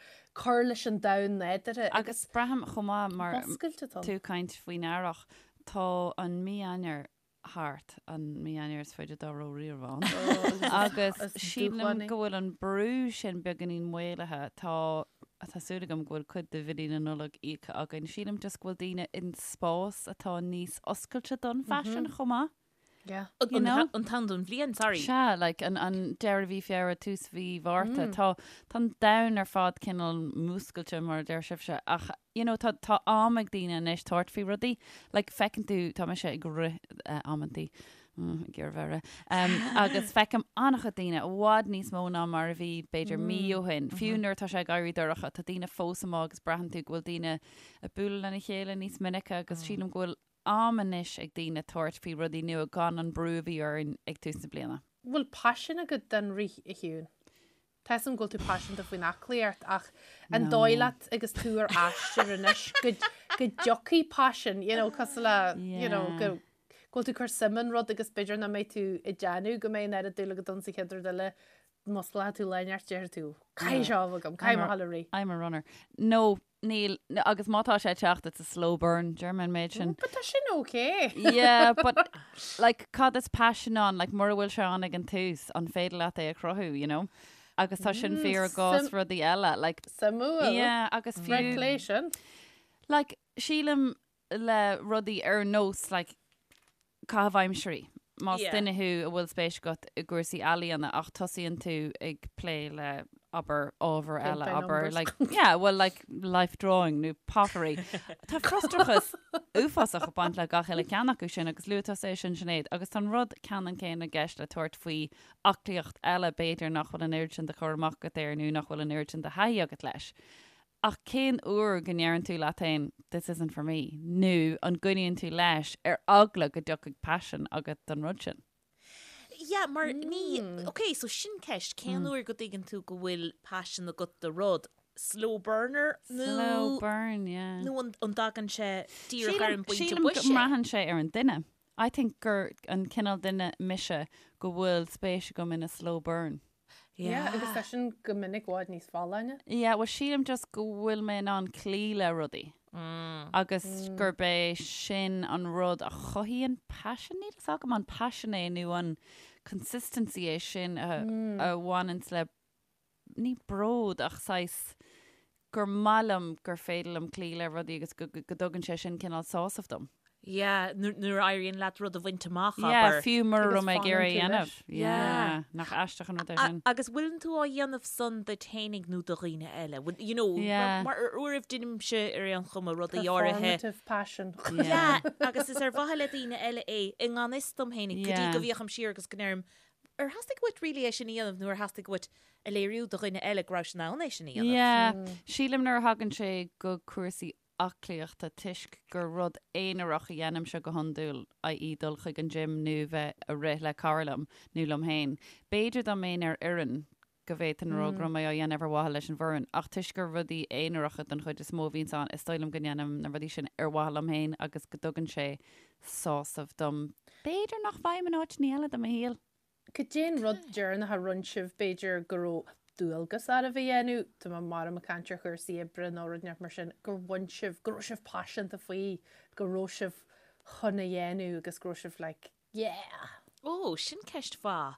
cur leis an domhan nádúrtha Agus braithim chomh maith mar oscailte atá. tú ag caint faoin earrach, tá an mí Eanáir thart, an mí Eanáir is faide dá raibh riamh ann. Agus is sílim dúshlánaí. go bhfuil an brú sin beagáinín maolaithe. Tá tá súil agam go bhfuil cuid de bhillí na Nollag íoctha againn. Sílim just go bhfuil daoine in spás atá níos oscailte don phaisean chomh maith. Yeah. You know? An t-am don bhliain, sorry. Sea, like an an deireadh mhí Feabhra, tús mhí Mhárta, tá tá an domhan ar fad cineál múscailte mar a deir sibhse ach you know tá tá am ag daoine anois tabhairt faoi rudaí. Like feiceann tú, tá mise ag rith eh, amantaí, mm, ag iarraidh bheith rith, um, agus feicim an-chuid daoine i bhfad níos mó ná mar a bhí b'fhéidir mí ó shin. Fiú nuair atá sé ag éirí dorcha, tá daoine fós amuigh agus braitheann tú go bhfuil daoine ag bualadh lena chéile níos minice agus sílim go bhfuil am anois ag daoine tabhairt faoi rudaí nua gan an brú a bhí orainn ag tús na bliana. Bhfuil paisean agat don rith a Shiún? Tá 'fhios a'm go bhfuil tú paiseanta faoin aclaíocht ach an dóigh leat agus tú ar aistear anois go go dtiocfaidh paisean, you know, cosúil le, you know, go go bhfuil tú ag cur suim in rud agus b'fhéidir nach mbeidh tú ag déanamh go mbeidh an oiread dúil agat ann sa chéad rud eile, musclóidh tú lá inteacht déarfaidh tú, caithfidh seo a bheith agam, caithfidh mé a dhul ag rith. I'm a runner. No, Níl, agus má tá sé ag teacht, it's a slow burn, deir mé an méid sin. But tá sin okay. Yeah, but like cad is passion ann, like mura bhfuil sé ann ag an tús, an féidir leat é a chruthú, you know? Agus tá sin fíor i gcás rudaí eile, like. Suimiúil. Yeah, agus fiú. Fair play sin. Like, sílim le rudaí ar nós, like, caitheamh aimsirí. Más duine thú a bhfuil spéis agat i gcúrsaí ealaíona ach tosaíonn tú ag plé le, abair, ábhar eile, abair, like, yeah, well, like, life drawing nó pottery. Tá frustrachas uafásach ag baint le gach uile ceann acu sin agus luaigh tusa é sin, Sinéad, agus tá an rud ceannann céanna i gceist le tabhairt faoi aclaíocht eile, b'fhéidir nach bhfuil an oiread sin de chur amach agat air nó nach bhfuil an oiread sin de thaithí agat leis. Ach cén uair go ndeireann tú leat féin this isn't for me nó an gcoinníonn tú leis ar eagla go dtiocfaidh paisean agat don rud sin? Yeah, mar ní, ok, so sin ceist, cén uair go dtuigeann tú go bhfuil paisean agat do rud? Slow burner nó Slow burn, yeah. nó an an dtagann sé díreach ar an bpointe Sílim go boise? mbraitheann sé ar an duine. I think gur an cineál duine mise go bhfuil spéis agam in a slow burn. Yeah, agus tá sin go minic i bhfad níos folláine. Yeah, well sílim just go bhfuil mé in ann cloí le rudaí agus gurb é sin an rud a chothaíonn paisean, níl fhios agam an paisean é nó an consistency é sin a a bhaineanns le ní bród ach saghas gur maith liom gur féidir liom cloí le rudaí agus go dtugann sé sin cineál sásamh dom. Yeah, nuair a éiríonn leat rud a bhaint amach, Yeah, abair. fiú mura Agus raibh mé ag iarraidh a fanann tú dhéanamh. leis. Yeah, nach aisteach an rud é sin. Agus bhfuileann tú á dhéanamh san duit fhéinig nó do dhaoine eile? Bhfuil, you know, Yeah. mar ar uairibh deinimse ar aon chuma rudaí áirithe. Performative passion. Yeah, agus is ar mhaithe le daoine eile é i ngan fhios dom fhéinig, go dtí Yeah. go bhféachaim siar agus go ndeirim, Ar theastaigh uait really é sin a dhéanamh nó ar theastaigh uait a léiriú do dhuine eile go raibh in ann é sin a dhéanamh? Yeah, sílim nuair a thagann sé go cúrsaí aclaíochta toisc gur rud aonarach a dhéanaimse go hiondúil, i.e. dul chuig an gym nó bheith a rith le cara liom nó liom féin. B'fhéidir dá mbeinn ar fhoireann go bhféadfainn a rá go raibh mé á dhéanamh ar mhaithe leis an bhfoireann ach toisc gur rudaí aonaracha den chuid is mó a bhíonns ann is dóigh liom go ndéanaim na rudaí sin ar mhaithe liom féin agus go dtugann sé sásamh dom. B'fhéidir nach bhfaighim in áiteanna eile de mo shaol. Cad é an rud deireanach a rinne sibh, b'fhéidir go raibh dualgas oraibh a dhéanamh, tá mé mar ag caint ar chúrsaí oibre nó rud inteacht mar sin, gur bhain sibh, go raibh sibh paiseanta faoi, go raibh sibh chun a dhéanamh agus go raibh sibh like, yeah! Ó, sin ceist mhaith.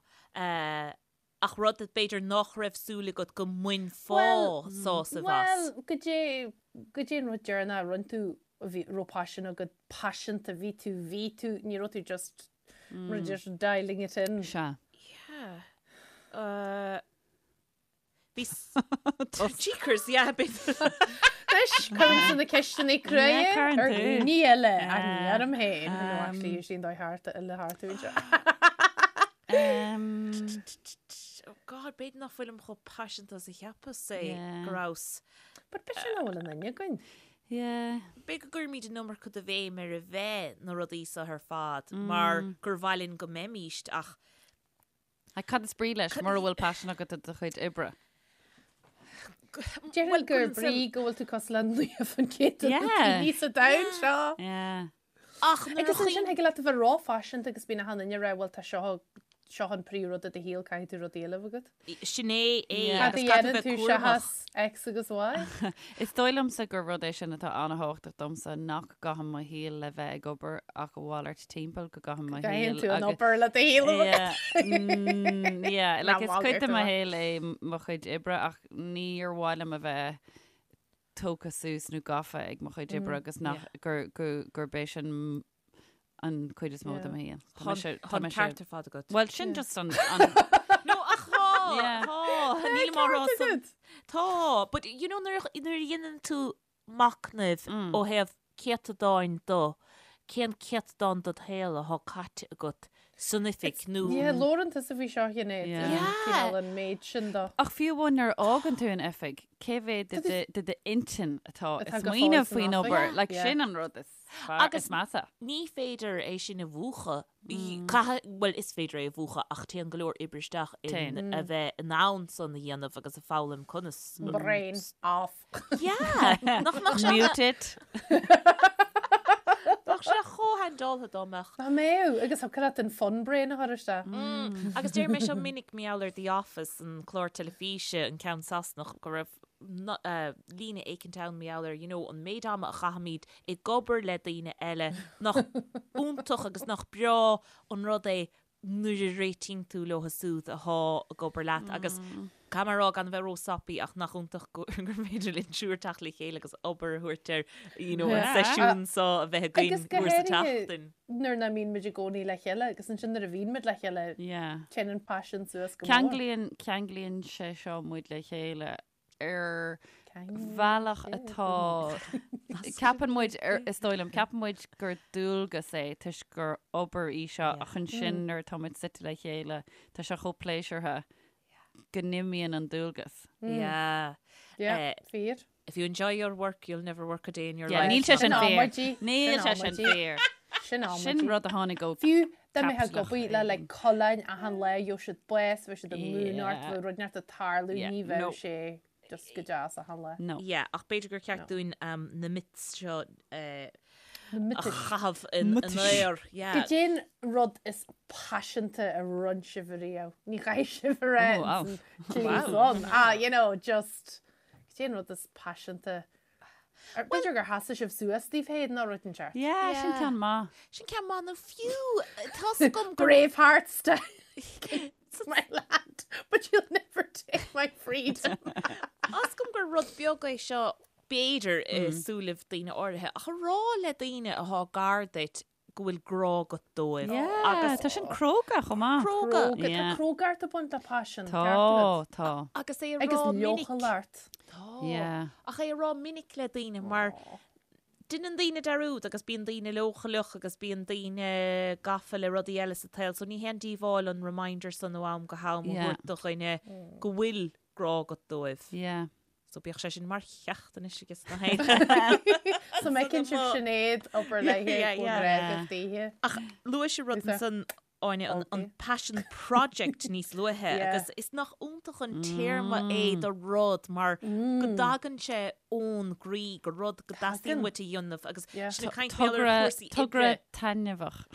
Ach rud b'fhéidir nach raibh súil agat go mbainfeá sásamh as. Bhuel, cad é, cad é an rud deireanach a rinne tú a bhí, raibh paisean agat, paiseanta, bhí tú, bhí tú, ní raibh tú just, mm. just dialing it in. Sea. Yeah. Uh, Bhí Jeekers, yeah, bit. Anois, cuirimse na ceisteanna crua Yeah, cuireann ar tú. dhaoine eile ach ní orm féin. No, actually, sin dóigh thart eile thart anseo. Um, Oh God, b'fhéidir nach bhfuilim chomh paiseanta is a cheapas é Yeah. go rabhas. But b'fhéidir nach bhfuil aon duine againn. yeah. B'fhéidir go gcuirimid an iomarca de bhéim ar a bheith na rudaí seo ar fad mar gur mhaith linn go mbeimíst ach Ach cad is brí leis mura bhfuil paisean agat do do chuid oibre? Déarfainn gur brí go bhfuil tú cosúil le 90% de na daoine sa domhan seo. Yeah. Ach nuair a Agus ansin thig leat a bheith róphaiseanta agus bíonn achan duine ag rá bhuel tá seo seo an príomhrud i do shaol caithfidh tú rud eile a bheith agat. Sin é é Cad a agus caithfidh dhéanann tú bheith tú cúramach. seachas X agus Y? Is dóigh liomsa gur rud é sin atá an-thábhachtach domsa, nach gcaithim mo shaol le bheith ag obair ach a mhalairt timpeall, go gcaithim mo shaol Gcaithfidh tú an obair le do shaol a bheith agat. Yeah, yeah, like Ná is cuid malairt de mo a bheith. shaol é mo chuid oibre ach níor mhaith liom a bheith tógtha suas nó gafa ag mo chuid oibre agus nach gur gur gurb é sin an cuid is mó de mo shaol. Tá mise- tá Tá an mise- ceart ar fad agat. Well, sin just an an No, ach tá, Yeah. tá, nílim á rá san. Tá, but you know nuair a nuair a dhéanann tú machnamh ó thaobh céatadáin do, cén céatadán dod shaol atá caite agat? san oifig nó. Yeah, labhrann tusa faoi seo Sinéad. Yeah. Cineál an méid sin do. Ach fiú amháin nuair a fhágann tú an oifig, cé mhéad de d'intinn atá ag Atá go fóill smaoineamh san faoin oifig. obair? Yeah. Like Yeah. sin an rud is fearr, Agus- is measa. Ní féidir é sin a mhúchadh. Caithfidh, bhuel is féidir é a mhúchadh ach téann go leor oibre isteach in Téann. a bheith in ann san a dhéanamh agus a foghlaim conas. Brain off. Yeah! Nach mbeadh sé Mute it. Bheadh sé chomh handáilte dá mbeadh. Dá mbeadh, agus thiocfadh leat an fun brain a chur isteach. Agus deir mé seo minic mar gheall ar The Office, an clár teilifíse, an ceann Sasanach, go raibh líne éicint ann mar gheall ar, you know, an méid ama a chaithimid ag obair le daoine eile, nach iontach agus nach breá an rud é nuair a réitíonn tú leo siúd athá ag obair leat agus caithfidh mé a rá gan a bheith ró-soppy ach nach iontach gur féidir linn triúr teacht le chéile agus obair a thabhairt ar you know an seisiún seo a bheith againn Agus go uair sa háirithe tseachtain. nuair nach mbíonn muid i gcónaí le chéile agus ansin nuair a bhíonn muid le chéile téann an paisean suas go mór. Ceanglaíonn, ceanglaíonn sé seo muid le chéile ar bhealach atá, ceapann muid, is dóigh liom, ceapann muid gur dualgas é toisc gur obair í seo ach ansin nuair atá muid suite le chéile, tá sé chomh pléisiúrtha go n-imíonn an dualgas. Yeah. Yeah, fíor. If you enjoy your work, you'll never work a day in your Yeah, life. níl sé sin Sin fíor. amaidí. Níl Sin sé sin amaidí. fíor. Sin amaidí. Sin rud a tháinig ó Fiú dá mbeifeá ag Caipitleach obair le like coileáin achan lá, gheobhadh siad bás, bheadh siad ag múineadh ort, Yeah. bheadh rud inteacht ag tarlú, Yeah, ní bheadh no. sé just go deas achan lá. No. Yeah, ach b'fhéidir gur cheart dúinn um, na myths seo eh, Na a miotais. chaitheamh in Miotais. in aer. Yeah. Cad é an rud is paiseanta a rinne sibh ariamh. Ní chaithfidh sibh a rá Oh, wow. an tslí san. Ah, you know, just Cad é an rud is paiseanta? B'fhéidir gur sheasaigh sibh suas daoibh féin nó rud inteacht. Yeah, sin ceann maith. Sin ceann maith nó fiú tá's agam gur Braveheart style. It's my land, but you'll never take my freedom. Tá's agam gur rud beag é seo b'fhéidir i súilibh daoine áirithe ach a rá le daoine atá gar duit go bhfuil grá agat dóibh. Yeah, Agus tá sin cróga chomh maith. Cróga. Cróga, Yeah. tá crógacht ag baint le paisean, Tá, ceart agat. tá. Agus é a Agus rá minic. leochaileacht. Tá. Yeah. Ach é a rá minic le daoine mar déanann daoine dearúd agus bíonn daoine leochaileach agus bíonn daoine gafa le rudaí eile sa tsaol so ní haon díobháil an reminder san ó am go ham a Yeah. thabhairt do dhuine go bhfuil grá agat dóibh. Yeah. So bíodh sé sin mar cheacht anois aige sna héin. So mbeidh sibh Sinéad obair léi Yeah, yeah. agus daoithe. Ach luaigh sé rud Lisa. ansan Áine an, an Okay. passion project níos luaithe Yeah. agus is nach iontach an téarma é do rud mar go dtagann sé ón gcroí gur rud go dteastaíonn Tagann. uait a dhéanamh agus Yeah. sin ag caint mé ar Togra, chúrsaí togra oibre. taitneamhach.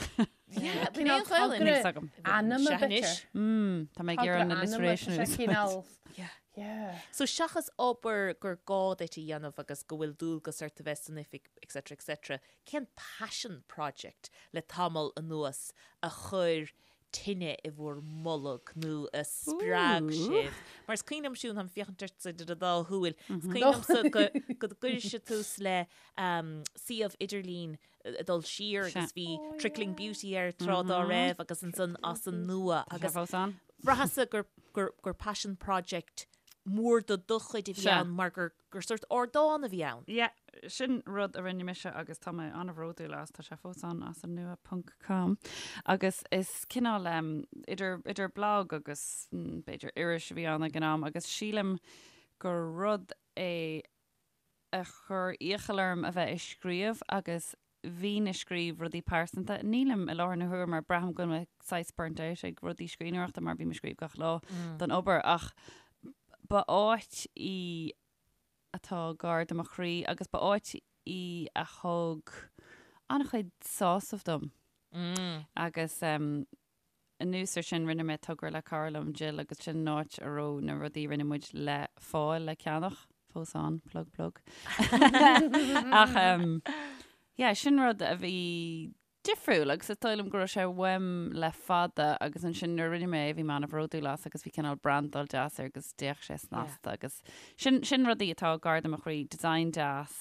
Yeah, Cineál bíonn Gaelainn. togra Níl agam. Anama Sea, anois. b'fhéidir. Mm, tá mé ag Togra iarraidh an anama, alliteration tá a sé úsáid. cineál Yeah. Yeah. So seachas obair gur gá duit a dhéanamh agus go bhfuil dualgas ort a bheith san oifig etc etc, cén passion project le tamall anuas a chuir tine i bhur mbolg nó a spreag sibh? Mar is cuimhin liom Siún, táim ag féachaint ortsa idir an dá shúil, is cuimhin liomsa go go gcuir sibh tús le suíomh idirlín ag dul siar agus bhí Trickling Beauty air tráth dá raibh agus ansan as an nua Tá sé agus fós ann? bhraitheas-sa gur, gur, gur passion project mór de do chuid a bhí Sea. ann mar gur, gur sórt ardán a bhí ann. Yeah, sin rud a rinne mise agus tá mé an-bhródúil as, tá sé fós ann as an nua ponc com. Agus is cineál um, idir, idir blog agus mm, b'fhéidir iris a bhí ann ag an am agus sílim gur rud é a chuir iachall orm a bheith ag scríobh agus bhínn ag scríobh rudaí pearsanta. Nílim i láthair na huaire mar braithim go bhfuil mé saghas burnt out ag rudaí scríbhneoireachta mar bím ag scríobh gach lá don obair ach ba áit í atá gar do mo chroí agus ba áit í a thug an-chuid sásamh dom. Agus Anuas ar sin, rinne mé togra le cara liom, Jill, agus sin an áit a raibh na rudaí a rinne muid le fáil le ceannach, fós ann, plug plug. Ach yeah, sin rud a bhí difriúil agus is dóigh liom go raibh sé uaim le fada agus ansin nuair a rinne mé é bhí mé an-bhródúil as agus bhí cineál brandáil deas air agus d'fhéach sé snasta agus sin, sin rudaí atá gar do mo chroí, design deas,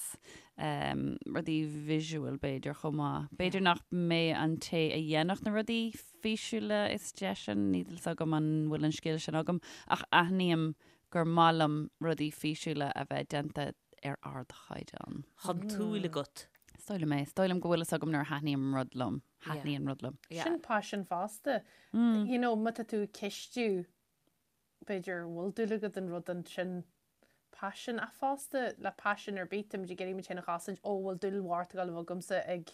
rudaí visual b'fhéidir chomh maith. B'fhéidir nach mé an té a dhéanfadh na rudaí físiúla is deise, níl fhios agam an bhfuil an scil sin agam, ach aithním gur maith liom rudaí físiúla a bheith déanta ar ardchaighdeán. Tá an tsúil agat. Is dóigh liom é. Is dóigh liom go bhfuil fhios agam nuair a thaitníonn rud liom. Thaitníonn rud liom. Sin paisean fosta. You know, má tá tú ag cistiú, b'fhéidir bhfuil dúil agat an rud ansin paisean ach fosta le paisean ar bith, táimid ag iarraidh muid féin a chosaint, ó bhfuil dúil mhór ag dul a bheith agamsa ag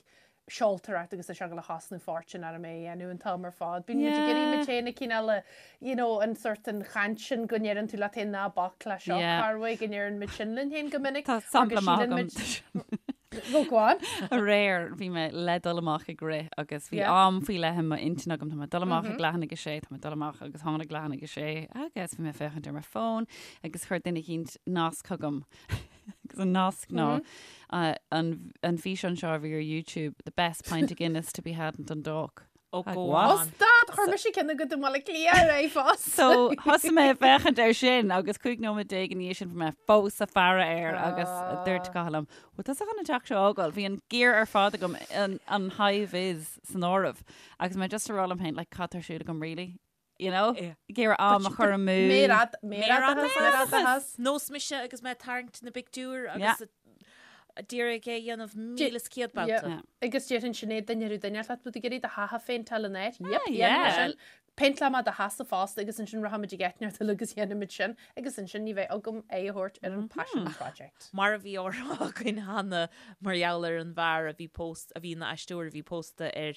seoltóireacht agus tá sé ag dul a chosnú fortune orm é a dhéanamh an t-am ar fad. Bíonn muid ag iarraidh muid féin a cineál a, you know, an sort an chaint sin go ndeireann tú leat féin ná bac le seo, Yeah. Carway, go ndeireann muid sin linn féin go minic. Tá mar go sampla maith síleann agam. muid- Go go on. Aréir bhí mé le dul amach ag rith agus bhí Yeah. am faoi leith i m'intinn agam tá mé ag dul amach ag leath i ndiaidh a sé, tá mé ag dul amach agus tháinig leath i ndiaidh a sé agus bhí mé ag féachaint ar mo fón agus chuir duine eicínt nasc chugam agus an nasc ná an an físeán seo a bhí ar YouTube, the best pint of Guinness to be had in Dundalk. Ó Like, go what? Ó on. stad, chuir mise ceann agat i mBaile Átha Cliath ar aghaidh fós. So thosaigh mé ag féachaint air sin agus 15 nóiméad ina dhiaidh sin bhí mé fós ag faire air agus dúirt Cathal liom, bhfuil tusa chun an teach seo a fhágáil? Bhí an gear ar fad agam, an, an high vis san áireamh agus mé just a rá liom féin, like, cad tá ar siúl agam really? You know? Yeah. Ag iarraidh am a chur amú. Méarad, méaradachas, méaradachas. Nós mise agus mé ag tarraingt na bpictiúr Yeah. agus d'iarraidh é a dhéanamh 1,100 babhta. Yeah. Yeah. Agus déarfainn Sinéad duine ar duine leat ag iarraidh do theach a phéinteáil in áit. Yep, Ah, dhéanfaidh mé yeah. sin. Péinteálfaidh mé do theachsa fosta agus ansin rachaimid ag eitneacht uilig agus dhéanfaimid sin agus ansin ní bheidh agam aghaidh a thabhairt ar an passion project. Mar a bhí á rá againn cheana mar gheall ar an bhfear a bhí póst, a bhí ina aisteoir a bhí pósta ar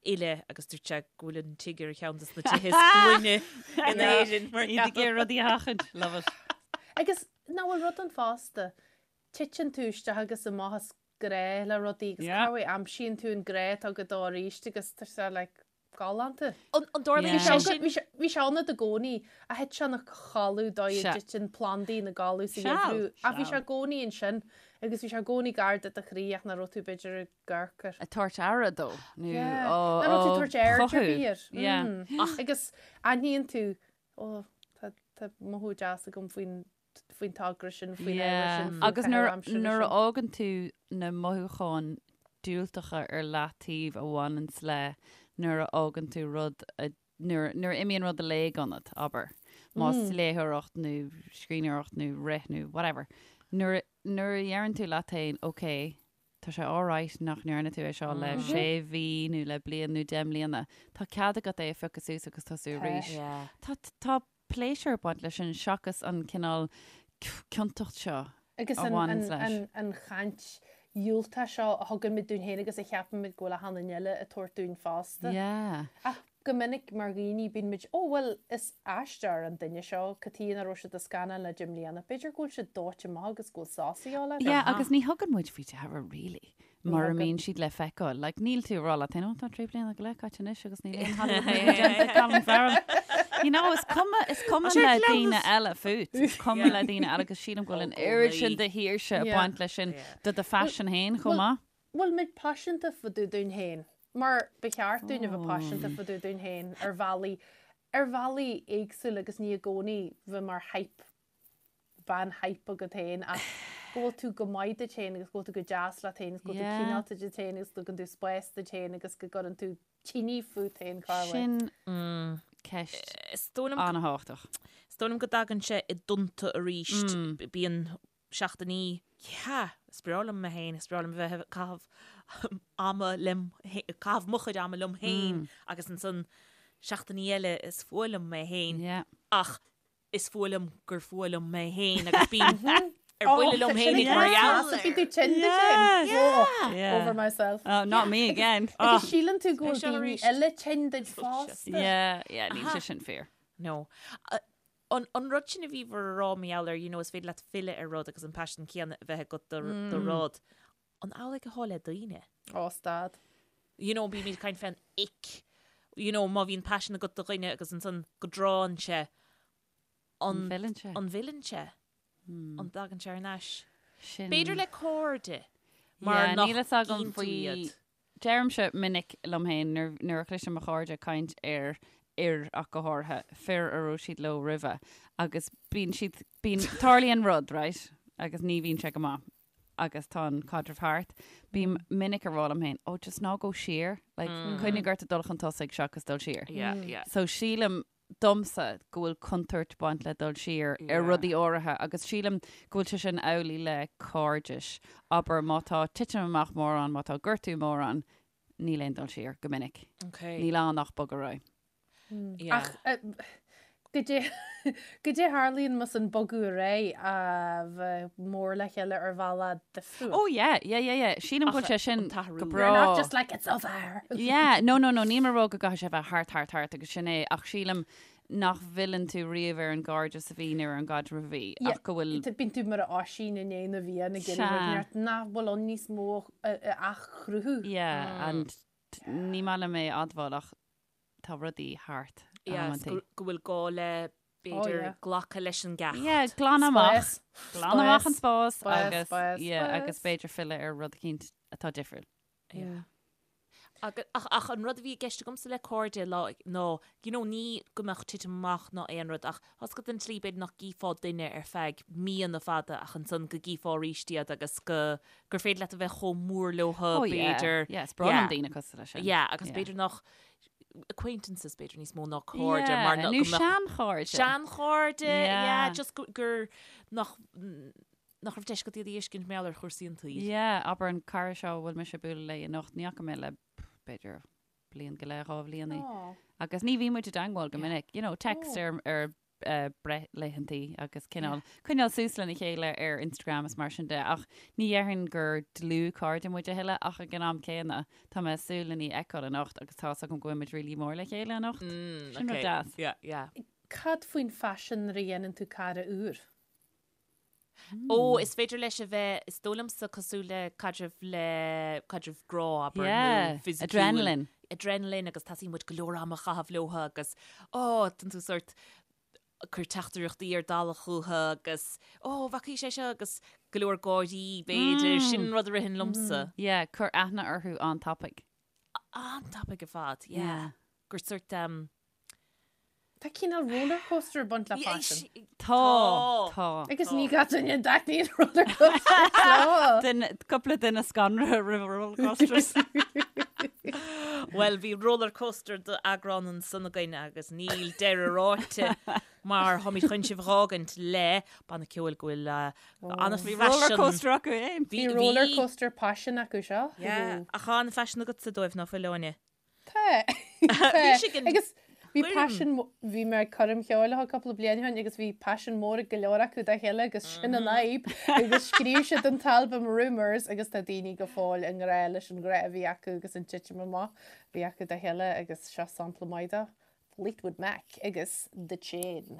fhile agus dúirt sé go bhfuil an tigh ar cheann de na tithe is glaine in Éirinn mar Iad ag iarraidh rudaí a sheachaint. Love it. Agus nach bhfuil rud ann fosta, titeann tú isteach agus amach as grá le rudaí agus Yeah. cá bhfuil aimsíonn tú an grá atá agat dó arís agus tá sé like galánta. An dtarlaíonn Yeah. sé Bhí sin? sé bhí sé ann i gcónaí a thit sé ina chodladh dóigh a Sea. dtiteann plandaí ina gcodladh sa Seal, gheimhreadh ach bhí seal. sé i gcónaí ansin agus bhí sé i gcónaí gar do do chroí ach nach raibh tú b'fhéidir ag amharc air. Ag tabhairt aire dó nó Yeah. á Nach raibh tú ag tabhairt aird ar chothú. bith air. Yeah. Mm. Agus aithníonn tú ó tá tá mothú deas agam faoin faoin togra sin, faoin ábhar sin, faoin Agus nuair caitheamh aimsire nuair a sin. fhágann tú na mothúcháin diúltacha ar leataobh a bhaineanns le nuair a fhágann tú rud a nuair nuair a imíonn rud i léig ionat, abair, más léitheoireacht nó scríbhneoireacht nó rith nó whatever, nuair nuair a dheireann tú leat féin, ok, tá sé alright nach ndearna tú é seo le sé mhí nó le bliain nó 10 mbliana, tá cead agat é a phiocadh suas agus tosú Tá. arís. Yeah. Tá tá pléisiúr ag baint leis sin seachas an cineál ciontacht seo Agus a an, bhaineanns an, leis. an, an chaint dhiúltach seo a thugann muid dúinn féin agus a cheapann muid go bhfuil achan duine eile ag tabhairt dúinn fosta. Yeah. Ach go minic mar dhaoine bíonn muid, ó bhuel is aisteoir an duine seo, cad chuige nach raibh siad i scannán le 10 mbliana, b'fhéidir go bhfuil siad dóite amach agus go bhfuil sos a dhíobháil orthu. Yeah, agus ní thugann muid faoi deara really. Mura thugann. mbíonn siad le feiceáil. Like, níl tú ag rá leat féin, "Ó, tá 3 bliana go leith caite anois agus níl aon Hollywood movie déanta ag Colin Farrell. You know, is cuma, is cuma le daoine eile fút. Is cuma le daoine eile agus sílim go bhfuil an oiread sin de shaoirse ag Yeah. baint leis sin do do phaisean féin chomh maith. Bhfuil muid paiseanta fá dtaobh dúinn féin? Mar ba cheart dúinn a bheith paiseanta fá dtaobh dúinn féin ar bhealaí, ar bhealaí éagsúla agus ní i gcónaí bheith mar hype bean hype agat féin ach go bhfuil tú go maith duit féin agus go bhfuil tú go deas leat féin agus go bhfuil tú Yeah. cineálta duit féin agus go dtugann tú spás duit féin agus go gcuireann tú tine fút féin cá bhfuil. Sin ceist Is dóigh liom an-thábhachtach. Is dóigh liom go dtagann sé i dtonnta arís. Bíonn seachtainí, yeah, is breá liom mé féin, is breá liom bheith ag caitheamh ama liom, caitheamh mo chuid ama liom féin agus ansan seachtainí eile is fuath liom mé féin. Yeah. Ach is fuath liom gur fuath liom mé féin agus bím ar buile liom féin ag mar gheall. Bhí tú tinn de sin. Yeah. Over myself. Oh, not me again. Agus síleann tú go bhfuil seo daoine arís. eile tinn duit fosta. Yeah, yeah, níl sé sin fíor. No. An, an rud sin a bhí bhur rá mar gheall ar, you know, is féidir leat filleadh ar rud agus an paisean céanna a bheith agat do, do rud. An amhlaidh atá le daoine? Ó, stad. You know, bímid ag caint fén ick. You know, má bhíonn paisean agat do dhuine agus ansan go dtránn sé, An an, bhfilleann sé? an bhfilleann sé? An dtagann sé ar ais? Sin. B'fhéidir le cairde, mar Yeah, nach níl fhios agam gcíonn tú faoi iad. Deirimse minic liom féin nuair, nuair a chloisim mo chairde ag caint ar fhir ach go háirithe, fir a raibh siad leo roimhe agus bíonn siad, bíonn, tarlaíonn rud, right? Agus ní bhíonn sé go maith agus tá an caidreamh thart. Bím minic ag rá liom féin, oh, just ná gabh siar, like, coinnigh ort ag dul chun tosaigh seachas dul siar. Yeah, yeah. So sílim. domsa go bhfuil contúirt baint le dul siar ar rudaí áirithe agus sílim go bhfuil sé sin amhlaidh le cairdis. Abair má tá titim amach mór ann, má tá gortú mór ann, níl aon dul siar go minic. Níl ann ach bogadh ar aghaidh. Ach goidé goidé a tharlaíonn más an bogadh ar aghaidh a bheith mór le chéile ar bhealach difriúil. Oh yeah, yeah, yeah, yeah. Sílim go bhfuil sé sin go breá. You're not just like it's over. Yeah, no, no, no, níl mé ag rá go gcaithfidh sé a bheith thart, thart, thart agus sin é, ach sílim nach bhfilleann tú riamh ar an gcairdeas a bhí nó ar an gcaidreamh a bhí, ach go bhfuil. Bíonn tú mar a Oisín i ndiaidh na bhFiann ag iarraidh rud neart nach bhfuil ann níos mó a athchruthú. Yeah, and ní maith liom é a admháil ach tá rudaí thart. Yes, go bhfuil gá le b'fhéidir glacadh leis an gceacht. Yeah, glan amach. Glan amach an spás agus yeah, agus b'fhéidir filleadh ar rud eicínt atá difriúil. Yeah. Ach, ach an rud a bhí i gceist agamsa le cairde lá ná, you know, ní go mbeadh titim amach ná aon rud ach tá 's agat an tslí b'fhéidir nach gcífeá duine ar feadh míonna fada ach ansan go gcífeá arís iad agus go gur féidir leat a bheith chomh mór leo Oh yeah, b'fhéidir. yeah, is breá liom daoine cosúil leis sin. Yeah, agus b'fhéidir nach acquaintances b'fhéidir níos mó ná cairde Yeah, mar nó go mbeadh seanchairde. Seanchairde, Yeah. yeah, just gur, gur nach nach raibh deis agat iad a fheiscint mar gheall ar chúrsaí an tsaoil. Yeah, abair an cara seo a bhfuil mise ag bualadh léi anocht, ní fhaca mé le b'fhéidir bliain go leith, 2 bhliain í. Agus ní bhíonn muid i dteangmháil go minic, you know, text ar ar breithlaethantaí agus cineál coinneáil suas lena chéile ar Instagram is mar sin de ach ní dhéarfainn gur dlúthchairde muid a thuilleadh ach ag an am céanna tá mé ag súil lena fheiceáil anocht agus tá 's agam go bhfuil muid really mór le chéile anocht. Sin rud deas. Yeah, yeah. Cad faoin phaisean nuair a dhéanann tú cara úr? Ó, is féidir leis a bheith, is dóigh liomsa, cosúil le caidreamh le caidreamh grá, abair, nó fisiciúil. Adrenaline. Adrenaline agus teastaíonn uait go leor ama a chaitheamh leo agus, ó, tánn tú sórt ag cur teachtaireachtaí ar dalladh chucu agus, ó, bhfacaís é seo agus go leor gáirí, b'fhéidir, sin an rud a ritheann liomsa. Yeah, cur aithne orthu an-tapaidh. An-tapaidh ar fad, yeah. Gur sórt, Tá cineál rollercoaster ag baint le paisean. Tá, tá. Agus ní gach duine a dtaitníonn rollercoasters leo. Duine, cúpla duine scanraithe roimh rollercoasters. Bhuel, bhí rollercoaster d'eagrán ansan againn agus níl deireadh ráite mar táimid chun sibh a dh'fhágaint le banna ceoil go bhfuil an-phaisean. Bhí rollercoaster acu fhéin. Bhí rollercoaster paisin acu seo. Yeah, ach tá an-phaisean agatsa dóibh, ná fuil, Áine? Tá. Bhí sé go Agus bhí gcuirim. paisean, bhí mé ag coirm cheoil leo cúpla bliain ó shin agus bhí paisean mór ag go leor acu dá chéile agus sin an fhadhb agus scríobh siad an t-albam Rumours agus tá daoine go fóill i ngrá leis an ghrá a bhí acu agus an titim amach a bhí acu dá chéile agus seo sampla maith de Fleetwood Mac agus The Chain.